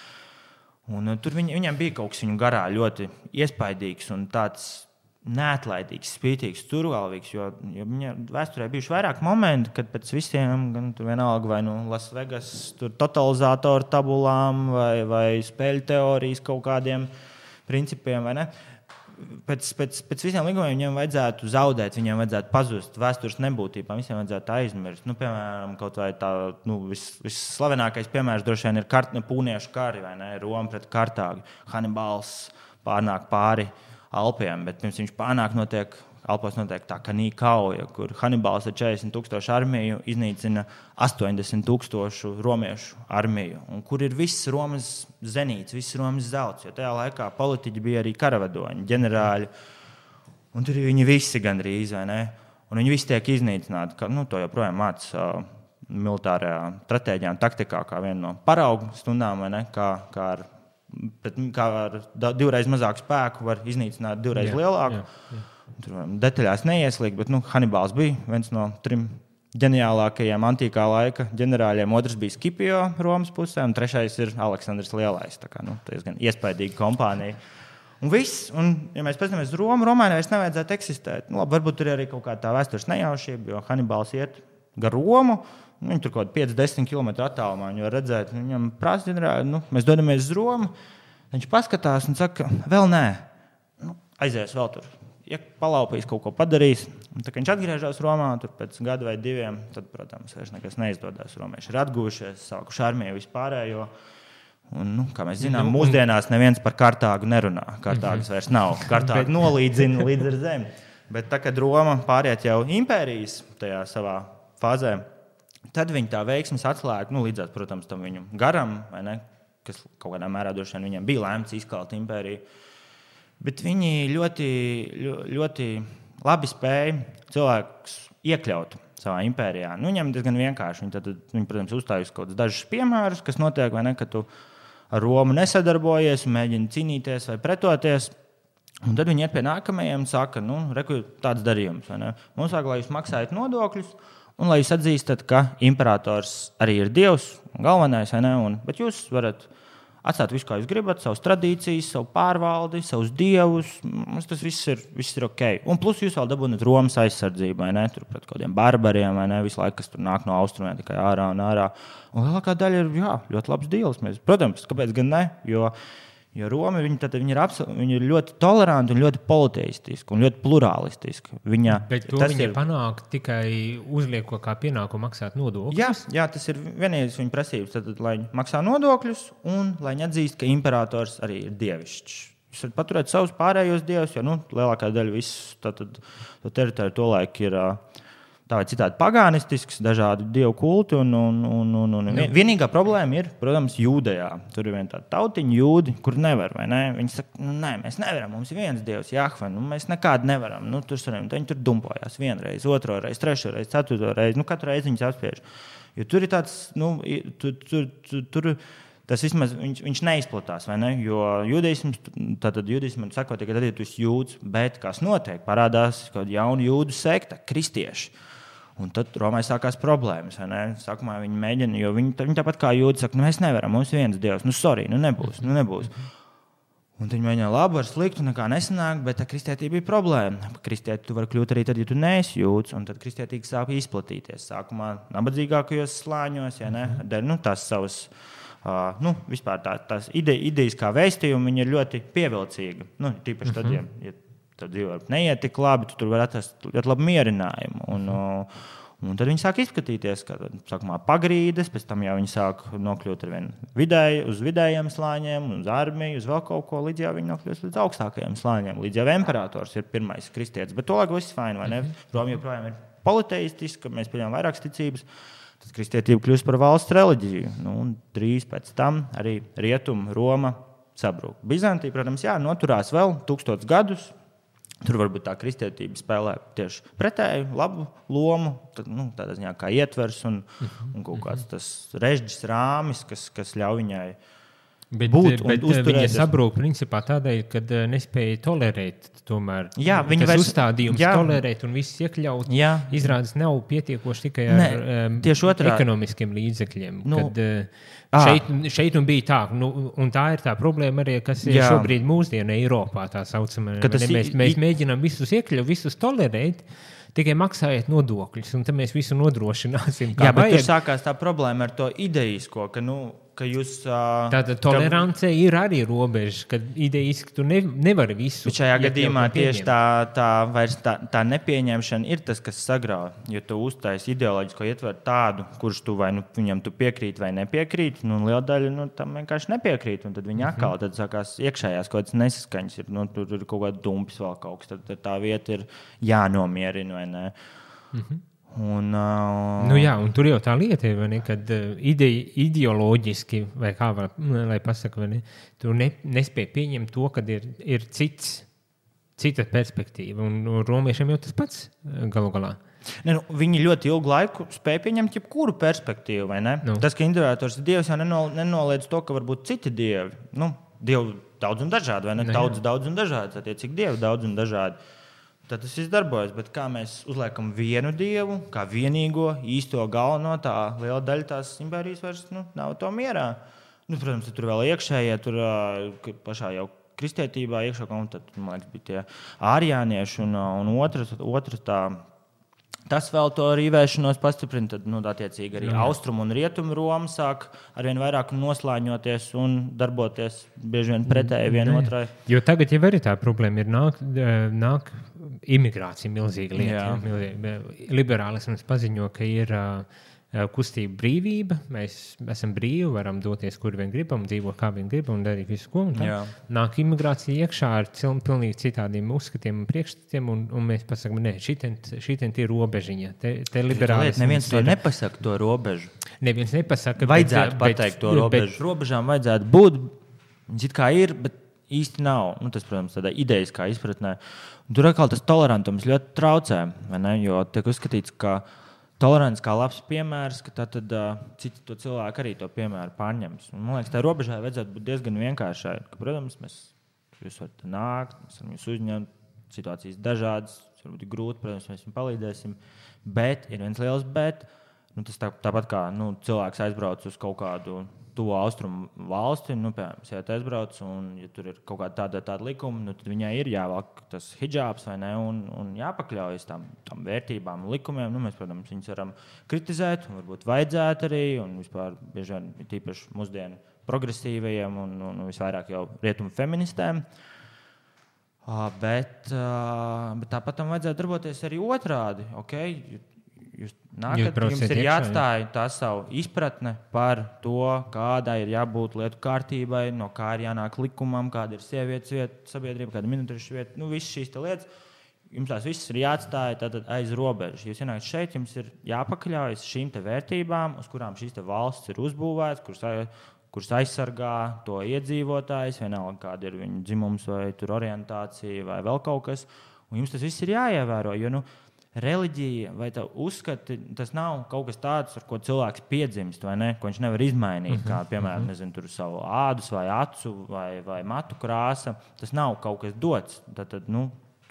Un tur viņam bija kaut kas viņu garā ļoti iespaidīgs un tāds neatlaidīgs, spītīgs, turgalvīgs, jo viņa vēsturē bijuši vairāk momenti, kad pēc visiem, gan tur vienalga vai Las Vegas totalizatoru tabulām vai spēļu teorijas kaut kādiem principiem, vai ne? Pēc visiem līgumiem viņiem vajadzētu zaudēt, viņiem vajadzētu pazust vēstures nebūtībām, visiem vajadzētu aizmirst. Piemēram, kaut vai tā visslavenākais piemērs droši vien ir pūniešu kari, vai ne? Roma pret Kartāgu. Hanibals pārnāk pāri Alpiem, bet pirms viņš pārnāk Alpos notiek tā Kanī kauja, kur Hanibals ar 40,000 armiju iznīcina 80,000 romiešu armiju, un kur ir viss Romas zenīts, viss Romas zelts, jo tajā laikā politiķi bija arī karavadoņi, ģenerāļi, un tur viņi visi gandrīz, vai ne? Un viņi visi tiek iznīcināti, to joprojām māca militārajā stratēģijā un taktikā, kā viena no paraugu stundām, vai ne? Kā ar divreiz mazāku spēku var iznīcināt divreiz lielāku. Jā. Tur detaļās neieslīgt, bet Hanibals bija viens no 3 ģeniālākajiem antīkā laika ģenerāļiem. Otrs bija Scipio Romas pusē, un trešais ir Aleksandrs Lielais. Tā kā, diezgan iespaidīga kompānija. Un viss, un ja mēs paskatāmies uz Romu, Romai vairs nevajadzētu eksistēt. Labi, varbūt tur ir arī kaut kā tā vēstures nejaušība, jo Hanibals iet gar Romu, viņi tur kaut 5-10 km attālumā, viņi var redzēt, viņam prasa ģenerāli, mēs dodamies uz Romu, viņš paskatās un saka, vēl nē, aizies vēl tur. Ja palaupīs kaut ko padarīs, tad, kad viņš atgriežas Romā, tur pēc gada vai 2, tad, protams, vairs nekas neizdodas. Romieši ir atguvušies, sākuši armiju vispārējo. Un, kā mēs zinām, mūsdienās neviens par Kartāgu nerunā. Kartāgas vairs nav. Kartāga nolīdzina līdz ar zemi. Bet tā, kad Roma pāriet jau impērijas tajā savā fāzē, tad viņi tā veiksmes atslēga, līdzās, protams, tam viņu garam, vai ne, kas kaut kādā mērā droši vien viņiem bija lēmts izkalt impēriju. Bet viņi ļoti, ļoti labi spēja cilvēkus iekļaut savā impērijā. Viņam diezgan vienkārši. Viņi, protams, uzstājas kaut kādus dažus piemērus, kas notiek, vai ne, ka tu ar Romu nesadarbojies un mēģini cīnīties vai pretoties. Un tad viņi iet pie nākamajiem un saka, reku, tāds darījums. Vai ne? Mums saka, lai jūs maksājat nodokļus un lai jūs atzīstat, ka imperators arī ir dievs un galvenais, vai ne? Bet jūs varat atstāt visu, kā jūs gribat, savas tradīcijas, savu pārvaldi, savus dievus. Mums tas viss ir ok. Un plus jūs vēl dabūnat Romas aizsardzību, vai ne? Tur pret kaut kādiem barbariem, vai ne? Visu laiku, kas tur nāk no austrumiem, tikai ārā un ārā. Un lielākā daļa ir, ļoti labs deals. Protams, kāpēc gan ne? Jo Roma, viņi ir ļoti toleranti un ļoti politeistiski un ļoti pluralistiski. Bet to viņi panāk tikai uzliekot kā pienākumu maksāt nodokļus? Jā, tas ir vienīgais viņa prasības. Tad, lai viņi maksā nodokļus un lai viņi atzīst, ka imperators arī ir dievišķs. Jūs varat paturēt savus pārējos dievus, jo lielākā daļa visu to teritoriju tolaik ir tā vai citādi pagānistisks, dažādi dievu kulti. Vienīgā problēma ir, protams, Jūdejā. Tur ir viena tāda tautiņa jūdi, kur nevar, vai ne? Viņi saka, nē, mēs nevaram, mums ir viens dievs, Jahve, mēs nekādu nevaram. Viņi tur dumpojās 1 reizi, 2 reizi, 3 reizi, 4 reizi, katru reizi viņus apspiež. Jo tur ir tāds, tur tas vismaz viņš neizplatās, vai ne? Jo jūdismu sako tikai tad, ja tu esi jūds, bet kas notiek? Parādās kaut jauna jūdu sekta, kristieši. Un tad Romai sākās problēmas. Sākumā viņi mēģina, jo viņi tāpat kā jūdi saka, mēs nevaram, mums ir viens dievs, sorry, nebūs. Un viņi mēģināja labu ar sliktu, nekā nesanāk, bet tā kristietība bija problēma. Kristieti tu vari kļūt arī tad, ja tu neesi jūts, un tad kristietība sāk izplatīties. Sākumā nabadzīgākajos slāņos, ja ne, tās savas, vispār tās idejas kā vēstījumi, viņi ir ļoti pievilcīgi. Tīpaši tad, ja tad dzīvē neiet tik labi, tu tur var atrast ļoti labu mierinājumu. Un tad viņi sāk izskatīties, kā sākumā pagrīdes, pēc tam jau viņi sāk nokļūt uz vidējiem slāņiem, uz armiju, uz vēl kaut ko, līdz jau viņi nokļūst līdz augstākajiem slāņiem. Līdz jau imperators ir pirmais kristietis, bet to laiku viss fine, vai ne? Roma joprojām ir politeistiska, mēs pieļaujam vairākas ticības, tad kristietība kļūst par valsts reliģiju. Un drīz pēc tam arī Rietumu Roma sabrūk. Bizantija, protams, noturās vēl 1000 gadus. Tur varbūt tā kristietība spēlē tieši pretēju labu lomu, tādā ziņā kā ietvers un kaut kāds tas režģis rāmis, kas ļauj viņai būt. Bet viņa sabrūk principā tādēļ, kad nespēja tolerēt tomēr. Jā, viņa tas uzstādījums tolerēt un viss iekļaut, izrādas nav pietiekoši tikai ar ekonomiskiem līdzekļiem. Šeit bija tā, un tā ir tā problēma arī, kas ir šobrīd mūsdienu Eiropā, tā saucamā. Mēs mēģinām visus iekļaut, visus tolerēt, tikai maksājiet nodokļus, un tad mēs visu nodrošināsim. Bet tur sākās tā problēma ar to idejisko, ka jūs... Tāda tolerance ir arī robeža, ka idejiski tu nevari visu. Bet šajā gadījumā tieši tā nepieņemšana ir tas, kas sagrauj. Jo tu uztaisi ideoloģisko ietveru tādu, kurš tu vai viņam tu piekrīt vai nepiekrīt, liela daļa tam vienkārši nepiekrīt. Un tad viņi atkal tad sākās iekšējās kaut kādas nesaskaņas. Tur ir kaut kāda dumpis vēl kaut kas. Tad tā vieta ir jānomierina vai ne. Un tur jau tā lieta ir, kad ideoloģiski, vai kā lai pasaka, vai ne, tu nespēj pieņemt to, kad ir cita perspektīva, un romiešiem jau tas pats galu galā. Viņi ļoti ilgu laiku spēja pieņemt jebkuru perspektīvu, vai ne? Tas, ka imperators ir dievs, jau nenoliedz to, ka varbūt citi dievi. Dievi daudz un dažādi, vai ne? Daudz un dažādi, attiecīgi dievi daudz un dažādi. Tad tas viss darbojas, bet kā mēs uzliekam vienu dievu, kā vienīgo, īsto galveno, tā liela daļa tās impērijas vairs nav to mierā. Protams, tur vēl iekšējie, tur pašā jau kristietībā iekšā, un tad, man liekas, bija tie ārjānieši, un otrs tā. Tas vēl to rīvēšanos pastiprina, tad, attiecīgi arī Austrumu un Rietumu Roma sāk arvien vairāk noslāņoties un darboties bieži vien pretēji vienotrai. Jo tagad jau arī tā problēma ir nāk imigrācija milzīga lieta. Liberālisms paziņo, ka ir kustība brīvība, mēs esam brīvi, varam doties, kur vien gribam, dzīvot kā vien gribam un darīt visu, ko. Nāk imigrācija iekšā ar pilnīgi citādiem uzskatiem un priekšstatiem, un mēs pasakam, šitien ir robežiņa. Te liberālisms. Neviens to nepasaka, to robežu. Neviens nepasaka. Vajadzētu pateikt to robežu. Robežām vajadzētu būt, viņas it kā ir, bet īsti nav. Tas, protams, tādā idejiskā izpratnē. Tur atkal tas tolerantums ļoti traucē, vai ne? Jo tiek uzskatīts, ka tolerants kā labs piemērs, ka tad citi to cilvēku arī to piemēru pārņems. Un, man liekas, tā robežai vajadzētu būt diezgan vienkāršai. Ka, protams, jūs varat nākt, mēs varam jūs uzņemt, situācijas dažādas, varbūt ir grūti, protams, mēs jums palīdzēsim, bet ir viens liels bet. Tas tāpat kā cilvēks aizbrauc uz kaut kādu to austrumu valsti, piemēram, sieviete aizbrauc, un ja tur ir kaut kāda tāda likuma, tad viņai ir jāvelk tas hidžābs, vai ne, un jāpakļaujas tam vērtībām un likumiem. Mēs, protams, viņus varam kritizēt, un varbūt vajadzētu arī, un vispār bieži vien tīpaši mūsdienu progresīvajiem un visvairāk jau rietumu feministēm. Bet tāpat tam vajadzētu darboties arī otrādi, okay? Jūs nākat, jums ir jāatstāj tā savu izpratne par to, kādai ir jābūt lietu kārtībai, no kā ir jānāk likumam, kāda ir sievietes vieta sabiedrība, kāda minoritāšu vieta. Visas šīs lietas, jums tās visas ir jāatstāj tātad aiz robežas. Jūs ienākat šeit, jums ir jāpakļaujas šīm te vērtībām, uz kurām šīs te valsts ir uzbūvētas, kuras aizsargā to iedzīvotājs, vienalga kāda ir viņa dzimums vai tur orientācija vai vēl kaut kas. Un jums tas viss ir jāievēro, jo reliģija vai tā uzskati, tas nav kaut kas tāds, ar ko cilvēks piedzimst, vai ne, ko viņš nevar izmainīt, kā, piemēram, tur savu ādus vai acu vai matu krāsa. Tas nav kaut kas dots, tad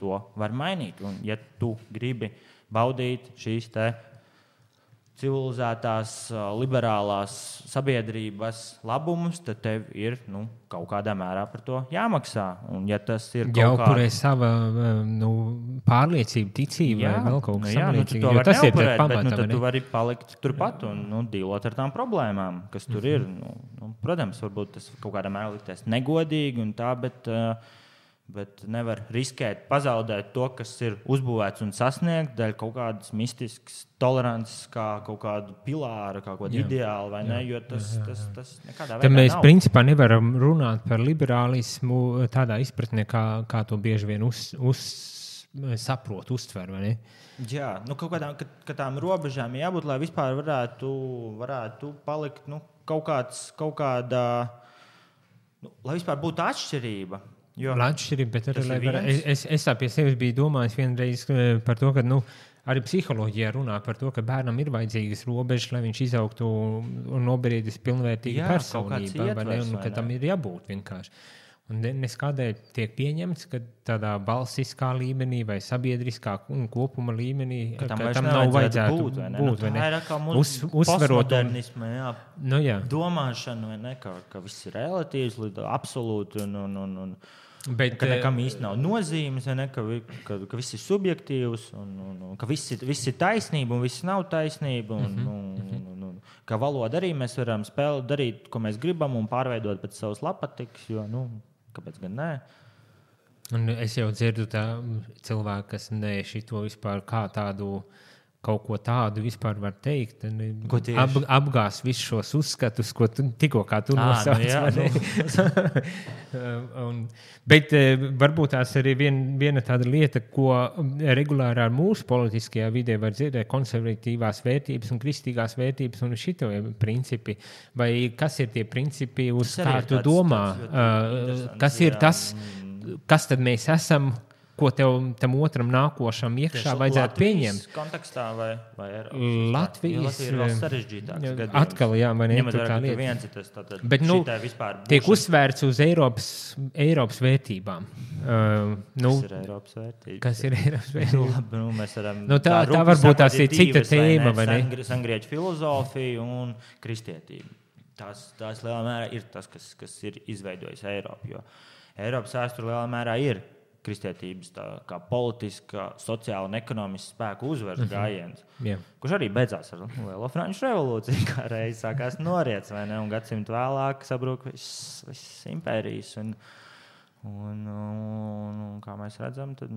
to var mainīt. Un, ja tu gribi baudīt šīs te civilizētās, liberālās sabiedrības labumus, tad tev ir kaut kādā mērā par to jāmaksā. Un, ja tas ir kaut jāupurē sava pārliecība, ticība vai vēl kaut kas samlīdzīgs. Jo tas ir pamata. Bet tu vari palikt turpat un dīlot ar tām problēmām, kas tur ir. Protams, varbūt tas kaut kādā mērā likties negodīgi un tā, bet nevar riskēt pazaudēt to, kas ir uzbūvēts un sasniegts dēļ kaut kādas mistiskas tolerances, kā kaut kādu pilāru, kā kaut kādu ideālu, vai ne? Jo tas nekādā veidā nav. Mēs principā nevaram runāt par liberālismu tādā izpratnē, kā to bieži vien saprot, uztver, vai ne? Jā, kaut kādām robežām jābūt, lai vispār varētu palikt kaut kādā, lai vispār būtu atšķirība. Atšķirība, bet arī es tā pie sevis biju domājis vienreiz par to, ka arī psiholoģijā runā par to, ka bērnam ir vajadzīgas robežas, lai viņš izaugtu un nobrīdis pilnvērtīga personība, un ka tam ir jābūt vienkārši. Un neskādēļ tiek pieņemts, ka tādā valstiskā līmenī vai sabiedriskā un kopuma līmenī tam nav vajadzētu būt. Tā ir atkal mūsu postmodernisma domāšana, vai ne? Ka viss ir relatīvs, absolūti bet, ka nekam īsti nav nozīmes, vai ne? Ka viss ir subjektīvs, un ka viss ir taisnība un viss nav taisnība. Ka valoda arī mēs varam darīt, ko mēs gribam un pārveidot pēc savas lapatikas, jo, kāpēc gan nē? Un es jau dzirdu cilvēku, kas šito vispār kā tādu, kaut ko tādu vispār var teikt. Apgās visus šos uzskatus, ko tikko kā tu nosauc. Bet varbūt tās arī viena tāda lieta, ko regulāri ar mūsu politiskajā vidē var dzirdēt, konservatīvās vērtības un kristīgās vērtības un šito principi. Vai kas ir tie principi, uz kā tu domā? Kas ir tas, kas tad mēs esam, ko tam otram nākošam iekšā vajadzētu pieņemt? Latvijas kontekstā vai Latvijas ir vēl sarežģītāks gadījums. Atkal, vai ne? Ņemot vērā, ka viens ir tas, tātad šitai vispār būšana. Tiek uzsvērts uz Eiropas vērtībām. Kas ir Eiropas vērtības? Kas ir Eiropas vērtības? Labi, mēs varam... tā varbūt tās ir cita tēma, vai ne? Sangrieķu filozofija un kristietība. Tās lielā mērā ir tas, kas ir izveidojis Eiropu, jo Eiropas vēsture lielā mērā ir kristietības kā politiska, sociāla un ekonomiska spēku uzvaras gājiens, kurš arī beidzās ar lielo Franču revolūciju, kā reiz sākās noriets, vai ne? Un gadsimtu vēlāk sabruka viss impērijas. Un kā mēs redzam, tad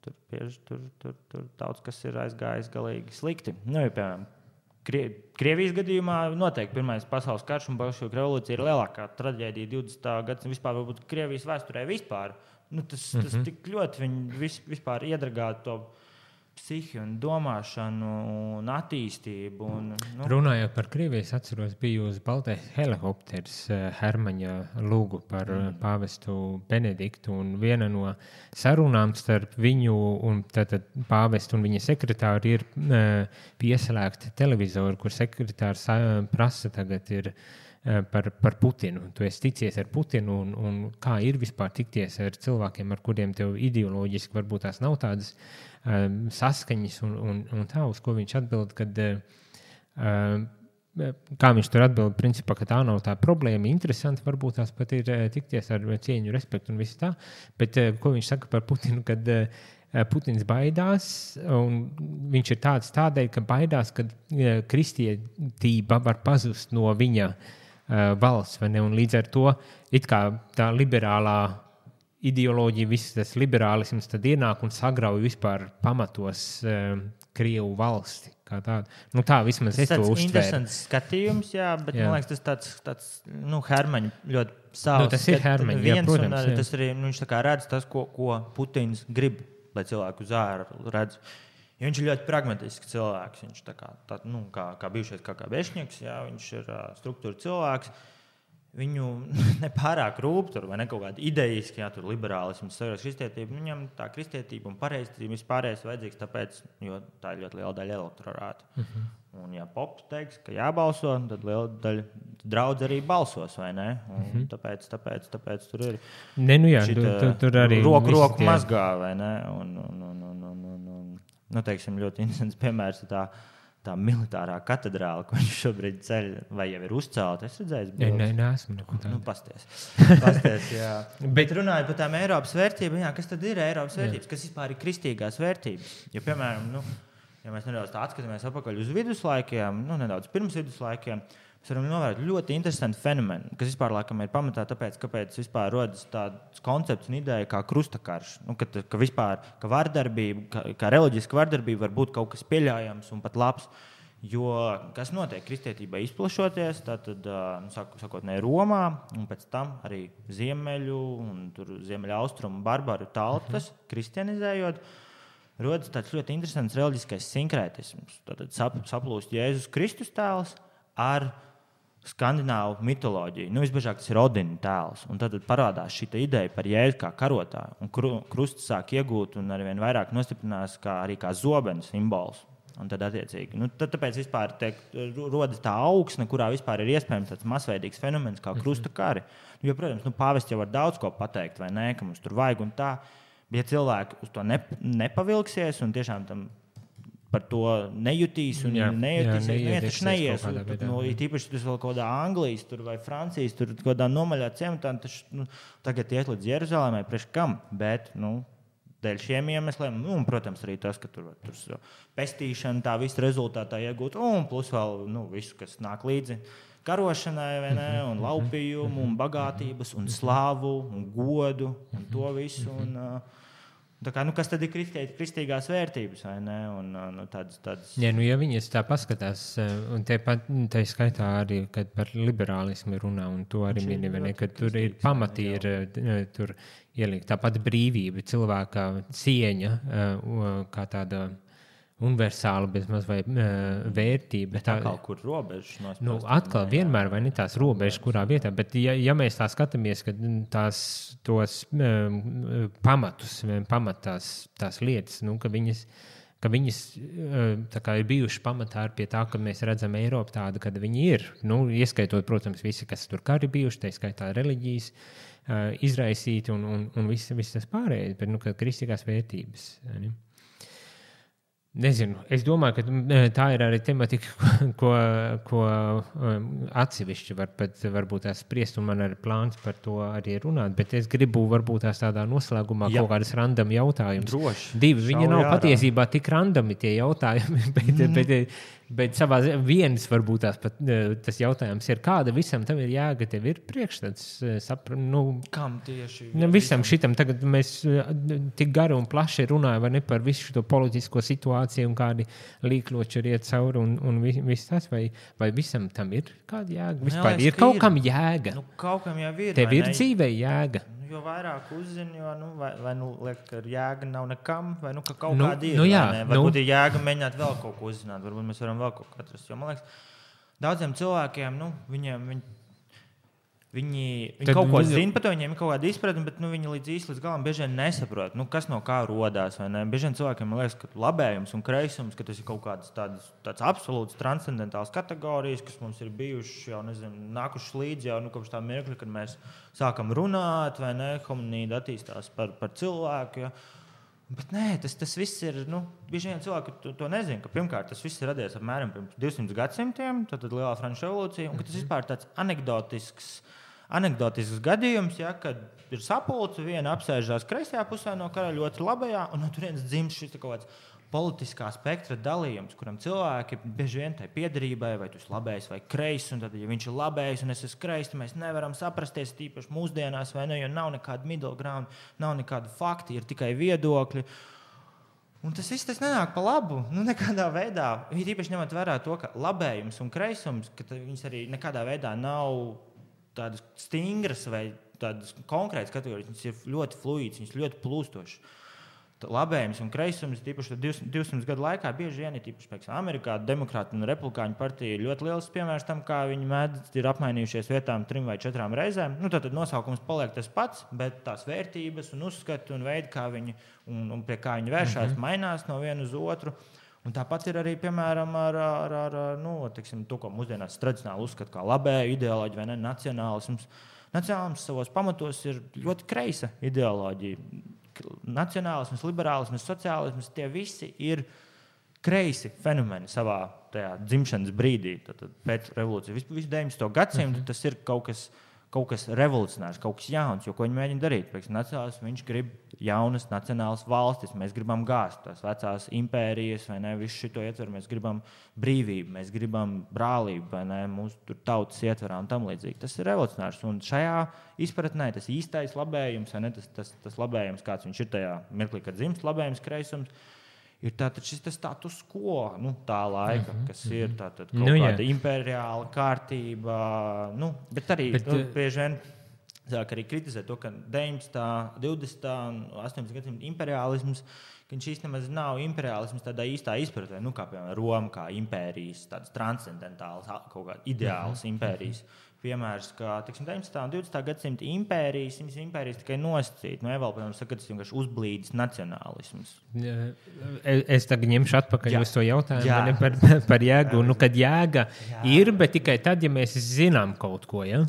tur daudz kas ir aizgājis galīgi slikti. Piemēram, Krievijas gadījumā noteikti Pirmais pasaules karš un Bolševiku revolūcija ir lielākā traģēdija 20. gadsimta vispār, varbūt Krievijas vēsturē vispār. Tas tik ļoti viņi vispār iedragātu to psihi un domāšanu un attīstību. Runājot par Krievijas, atceros, biju uz baltais helikopters Hermaņa lūgu par pāvestu Benediktu, un viena no sarunām starp viņu un tātad pāvestu un viņa sekretāru ir pieslēgt televizoru, kur sekretārs prasa tagad ir par Putinu. Tu esi ticies ar Putinu un kā ir vispār tikties ar cilvēkiem, ar kuriem tev ideoloģiski varbūt tās nav tādas saskaņas un tā, uz ko viņš atbild, kad kā viņš tur atbild, principā, ka tā nav tā problēma, interesanti, varbūt tās pat ir tikties ar cieņu, respektu un visu tā, bet ko viņš saka par Putinu, kad Putins baidās, un viņš ir tādēļ, ka baidās, ka kristietība var pazust no viņa valsts, vai ne? Un līdz ar to it kā tā liberālā ideoloģija, viss tas liberālisms tad ienāk un sagrauj vispār pamatos Krievu valsti kā tādu. Tā vismaz es to uztvēru. Tas interesants skatījums, bet man liekas, tas tāds Hermaņa ļoti savs. Tas ir Hermaņa, protams. Tas arī, viņš tā kā redz tas, ko Putins grib, lai cilvēku uz āra redz. Jo viņš ir ļoti pragmatisks cilvēks. Viņš kā bijušais KGBšnieks, viņš ir struktūra cilvēks. Viņu nepārāk rūp tur, vai ne kaut kāda idejiski, tur liberālisms, kristietība. Viņam tā kristietība un pareizticība vispārējais vajadzīgs, tāpēc, jo tā ir ļoti liela daļa elektorāta. Un ja pops teiks, ka jābalso, tad liela daļa draudz arī balsos, vai ne? Un tāpēc tur ir tur arī roku mazgā, vai ne? Teiksim, ļoti interesants piemērs ir tā tā militārā katedrāle, ko viņš šobrīd ceļ, vai jau ir uzcelta. Es redzēju, neesmu neko tādu. Pasties, jā. Bet runājot par tām Eiropas vērtībām, kas tad ir Eiropas vērtības? Kas vispār ir kristīgās vērtības? Ja, piemēram, ja mēs nedaudz tā atskatāmies atpakaļ uz viduslaikiem, nedaudz pirms viduslaikiem, mēs varam novērot ļoti interesantu fenomenu, kas vispār laikam ir pamatā tāpēc, kāpēc vispār rodas tāds koncepts un ideja kā krustakarš. Ka vardarbība, kā reliģiska vardarbība var būt kaut kas pieļaujams un pat labs. Jo kas notiek kristietībai izplašoties, tātad sākotnēji Romā un pēc tam arī ziemeļu un ziemeļa austrumu barbaru tautas kristianizējot, rodas tāds ļoti interesants reliģiskais sinkrētisms. Tātad saplūst Jēzus Kristus tēls ar skandināvu mitoloģiju. Visbiežāk tas ir Odina tēls. Un tad parādās šī ideja par Jēzu kā karotāju. Un krusts sāk iegūt un arvien vairāk nostiprinās arī kā zobens simbols. Un tad attiecīgi. Tāpēc vispār rodas tā augsne, kurā vispār ir iespējams tāds masveidīgs fenomens kā krusta kari. Jo, protams, pāvests jau var daudz ko pateikt, vai nē, ka mums tur vajag un tā. Bet ja cilvēki uz to nepavilksies un tiešām tam par to nejutīs un neies. Tīpaši tas vēl kaut kādā Anglijas vai Francijas, tur kaut kādā nomaļā ciematā, tagad iet līdz Jeruzalemē, priekš kam, bet, dēļ šiem iemesliem, un, protams, arī tas, ka tur pestīšana tā visa rezultātā iegūt, un plus vēl, visu, kas nāk līdzi karošanai, vai ne, un laupījumu, un bagātības, un slāvu, un godu, un to visu, un kas tad ir kristīgās vērtības, vai ne? Tādas... Ja viņas tā paskatās, un te skaitā arī, kad par liberālismu runā, un to arī minēja, ka tur ir pamati, tur ielikt tāpat brīvība, cilvēka cieņa, kā tāda universāla, bet maz vai vērtība. Tā kaut kur robežas. Atkal vienmēr vai ne tās robežas, kurā vietā, bet ja mēs tā skatāmies, ka tos pamatus, tās lietas, ka viņas tā kā ir bijušas pamatā pie tā, ka mēs redzam Eiropu tādu, kad viņi ir. Ieskaitot, protams, visi, kas tur kari bijuši, tā skaitā reliģijas, izraisīti un viss tas pārējais, bet kristīgās vērtības. Ne? Nezinu, es domāju, ka tā ir arī tematika, ko atsevišķi varbūt tās spriest, un man ir plāns par to arī runāt, bet es gribu varbūt tās tādā noslēgumā kaut kādas random jautājumus. Droši. Viņi nav patiesībā tik randomi tie jautājumi, bet savā vienas varbūt tas jautājums ir, kāda visam tam ir jēga, tev ir priekšstats. Kam tieši? Visam šitam tagad mēs tik gari un plaši runājam, vai ne, par visu šo politisko situāciju un kādi līkloči ir iet cauri un viss tas, vai visam tam ir kāda jēga? Vispār ir kaut kam jēga? Kaut kam jau ir. Tev ir dzīvē jēga? Jo vairāk uzzini, vai liek, ka jēga nav nekam, vai ka kaut kāda ir. Varbūt ir jēga mēģināt vēl kaut ko uzzināt, varbūt mēs varam vēl kaut ko atrast. Jo, man liekas, daudziem cilvēkiem, viņi kaut ko zina par to, viņiem ir kaut kāda izpratne, bet viņi līdz galam bieži vien nesaprot, kas no kā rodās. Bieži vien cilvēkiem man liekas, ka labējums un kreisums, ka tas ir kaut kāds tāds absolūts transcendentāls kategorijas, kas mums ir bijušas jau, nākušas līdzi jau kopš tā mirkļa, kad mēs sākam runāt, vai ne, hominīda attīstās par cilvēku. Ja. Bet nē, tas viss ir, bieži vien cilvēki to nezina, ka pirmkārt tas viss ir radies apmēram pirms 200 gadsimtiem, tad lielā Franču revolūcija, un ka tas vispār tāds anekdotisks gadījums, ja, kad ir sapulce, viena apsēžās kreisajā pusē no karaļa, otra labajā, un no turienes dzimst šis kaut kāds politiskā spektra dalījums, kuram cilvēki bieži vien tai piederībai, vai tu esi labējs vai kreis, un tad, ja viņš ir labējs un es esmu kreis, tad mēs nevaram saprasties tīpaši mūsdienās, vai ne, jo nav nekāda middle ground, nav nekāda fakti, ir tikai viedokļi. Un tas viss nenāk pa labu, nekādā veidā. Tīpaši ņemot vērā to, ka labējums un kreisums, ka viņas arī nekādā veidā nav tādas stingras vai tādas konkrētas kategorijas, viņas ir ļoti fluīdas, viņas ļoti plūstošas. Labējums un kreisums, tīpaši 200 gadu laikā, bieži vien ir tīpaši Amerikā, demokrāti un republikāņu partija ir ļoti liels piemērs tam, kā viņi mēdz ir apmainījušies vietām 3 vai 4 reizēm. Tad nosaukums paliek tas pats, bet tās vērtības un uzskati un veidi, kā viņi un pie kā viņi vēršās, mainās no viena uz otru. Un tāpat ir arī, piemēram, ar to, ko mūsdienās tradicionāli uzskata kā labēju ideoloģiju vai ne, nacionālisms. Nacionālisms savos pamatos ir ļoti kreisa ideoloģija. Nacionālisms, liberālisms, sociālisms, tie visi ir kreisi fenomeni savā tajā dzimšanas brīdī, tad pēc revolūcijas. Visu 19. gadsimtu tas ir kaut kas revolucionārs, kaut kas jauns, jo ko viņi mēģina darīt? Viņš grib jaunas nacionālas valstis, mēs gribam gāzt tās vecās impērijas, vai ne, visu šito ietveru, mēs gribam brīvību, mēs gribam brālību, vai ne, mūsu tur tautas ietverā un tam līdzīgi. Tas ir revolucionārs, un šajā izpratnē tas īstais labējums, vai ne, tas labējums, kāds viņš ir tajā mirklī, kad dzimst labējums, kreisums, ir tātad šis status quo, tā laika, kas ir tātad kaut kāda imperiāla kārtība, bet arī bieži vien sāk arī kritizēt to, ka 19., 20. un 18. gadsimta imperiālisms, ka viņš īstenībā nav imperiālisms tādā īstā izpratnē, kā piemēram Roma, kā impērijas, tādas transcendentālas, kaut kādas ideālas impērijas. Piemērs, ka 19. un 20. gadsimta impērijas tikai nosacīt. Evalda, piemēram, saka, ka tas vienkārši uzblīdis nacionālisms. Es tagad ņemšu atpakaļ uz to jautājumu par jēgu. Kad jēga ir, bet tikai tad, ja mēs zinām kaut ko, ja?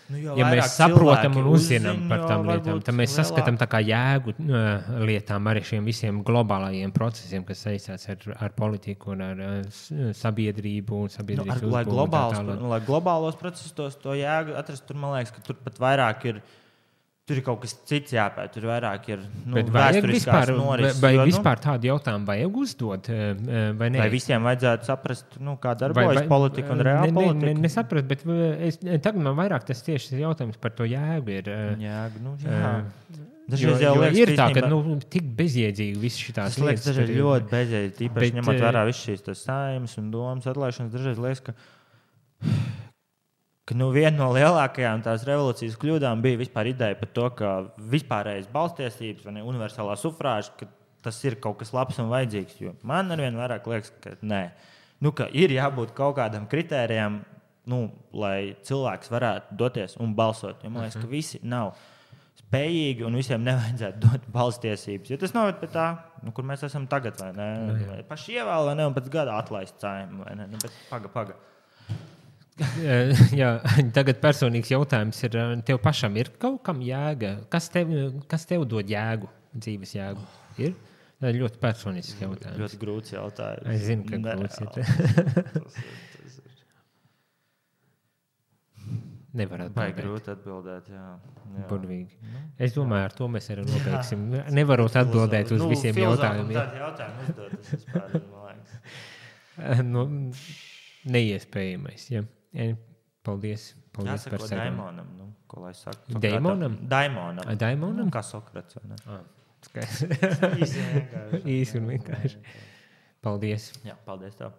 Ja mēs saprotam un uzzinām par tām lietām, tad mēs saskatām tā kā jēgu lietām arī šiem visiem globālajiem procesiem, kas saistās ar politiku un ar sabiedrību un sabiedrības uzbūvi. Lai globālos procesos to jēgu atrast, tur man liekas, ka tur pat vairāk ir. Tur ir kaut kas cits jāpēt, tur vairāk ir vēsturiskās norises. Vai vispār tādu jautājumu vajag uzdot? Vai visiem vajadzētu saprast, kā darbojas politika un reāla politika? Nesaprast, bet tagad man vairāk tas tieši jautājums par to jēgu ir. Jo ir tā, ka tik bezjēdzīgi viss šitās lietas. Tas liekas ļoti bezjēdzīgi, tīpaši ņemot vērā visu šīs saimas un domas atlaišanas, dažreiz liekas, ka viena no lielākajām tās revolūcijas kļūdām bija vispār ideja par to, ka vispārējais balstiesības vai universālā sufrāža, ka tas ir kaut kas labs un vajadzīgs. Jo man arvien vairāk liekas, ka nē. Ka ir jābūt kaut kādam kritērijam, lai cilvēks varētu doties un balsot. Jo man liekas, ka visi nav spējīgi un visiem nevajadzētu dot balstiesības. Jo tas noved pie tā, kur mēs esam tagad, vai ne? Vai paši ievēl, vai ne? Un pēc gada atlaist Saimu, vai ne? Bet paga. Jā, tagad personīgs jautājums ir, tev pašam ir kaut kam jēga? Kas tev dod jēgu, dzīves jēgu? Ir? Tā ir ļoti personisks jautājums. Ļoti grūts jautājums. Es zinu, ka grūts ir. Nevar atbildēt. Vai grūti atbildēt, jā. Burvīgi. Es domāju, ar to mēs arī nobeigsim. Nevarot atbildēt uz visiem jautājumiem. Tādi jautājumi uzdot, tas vispār, man liekas. Neiespējamais, ja. Paldies jāsaka, par sarunu. Daimonam, ko lai saka? Daimonam? Daimonom. Kā Sokrats, vai ne? Īsi un vienkārši. Paldies. Jā, paldies tev.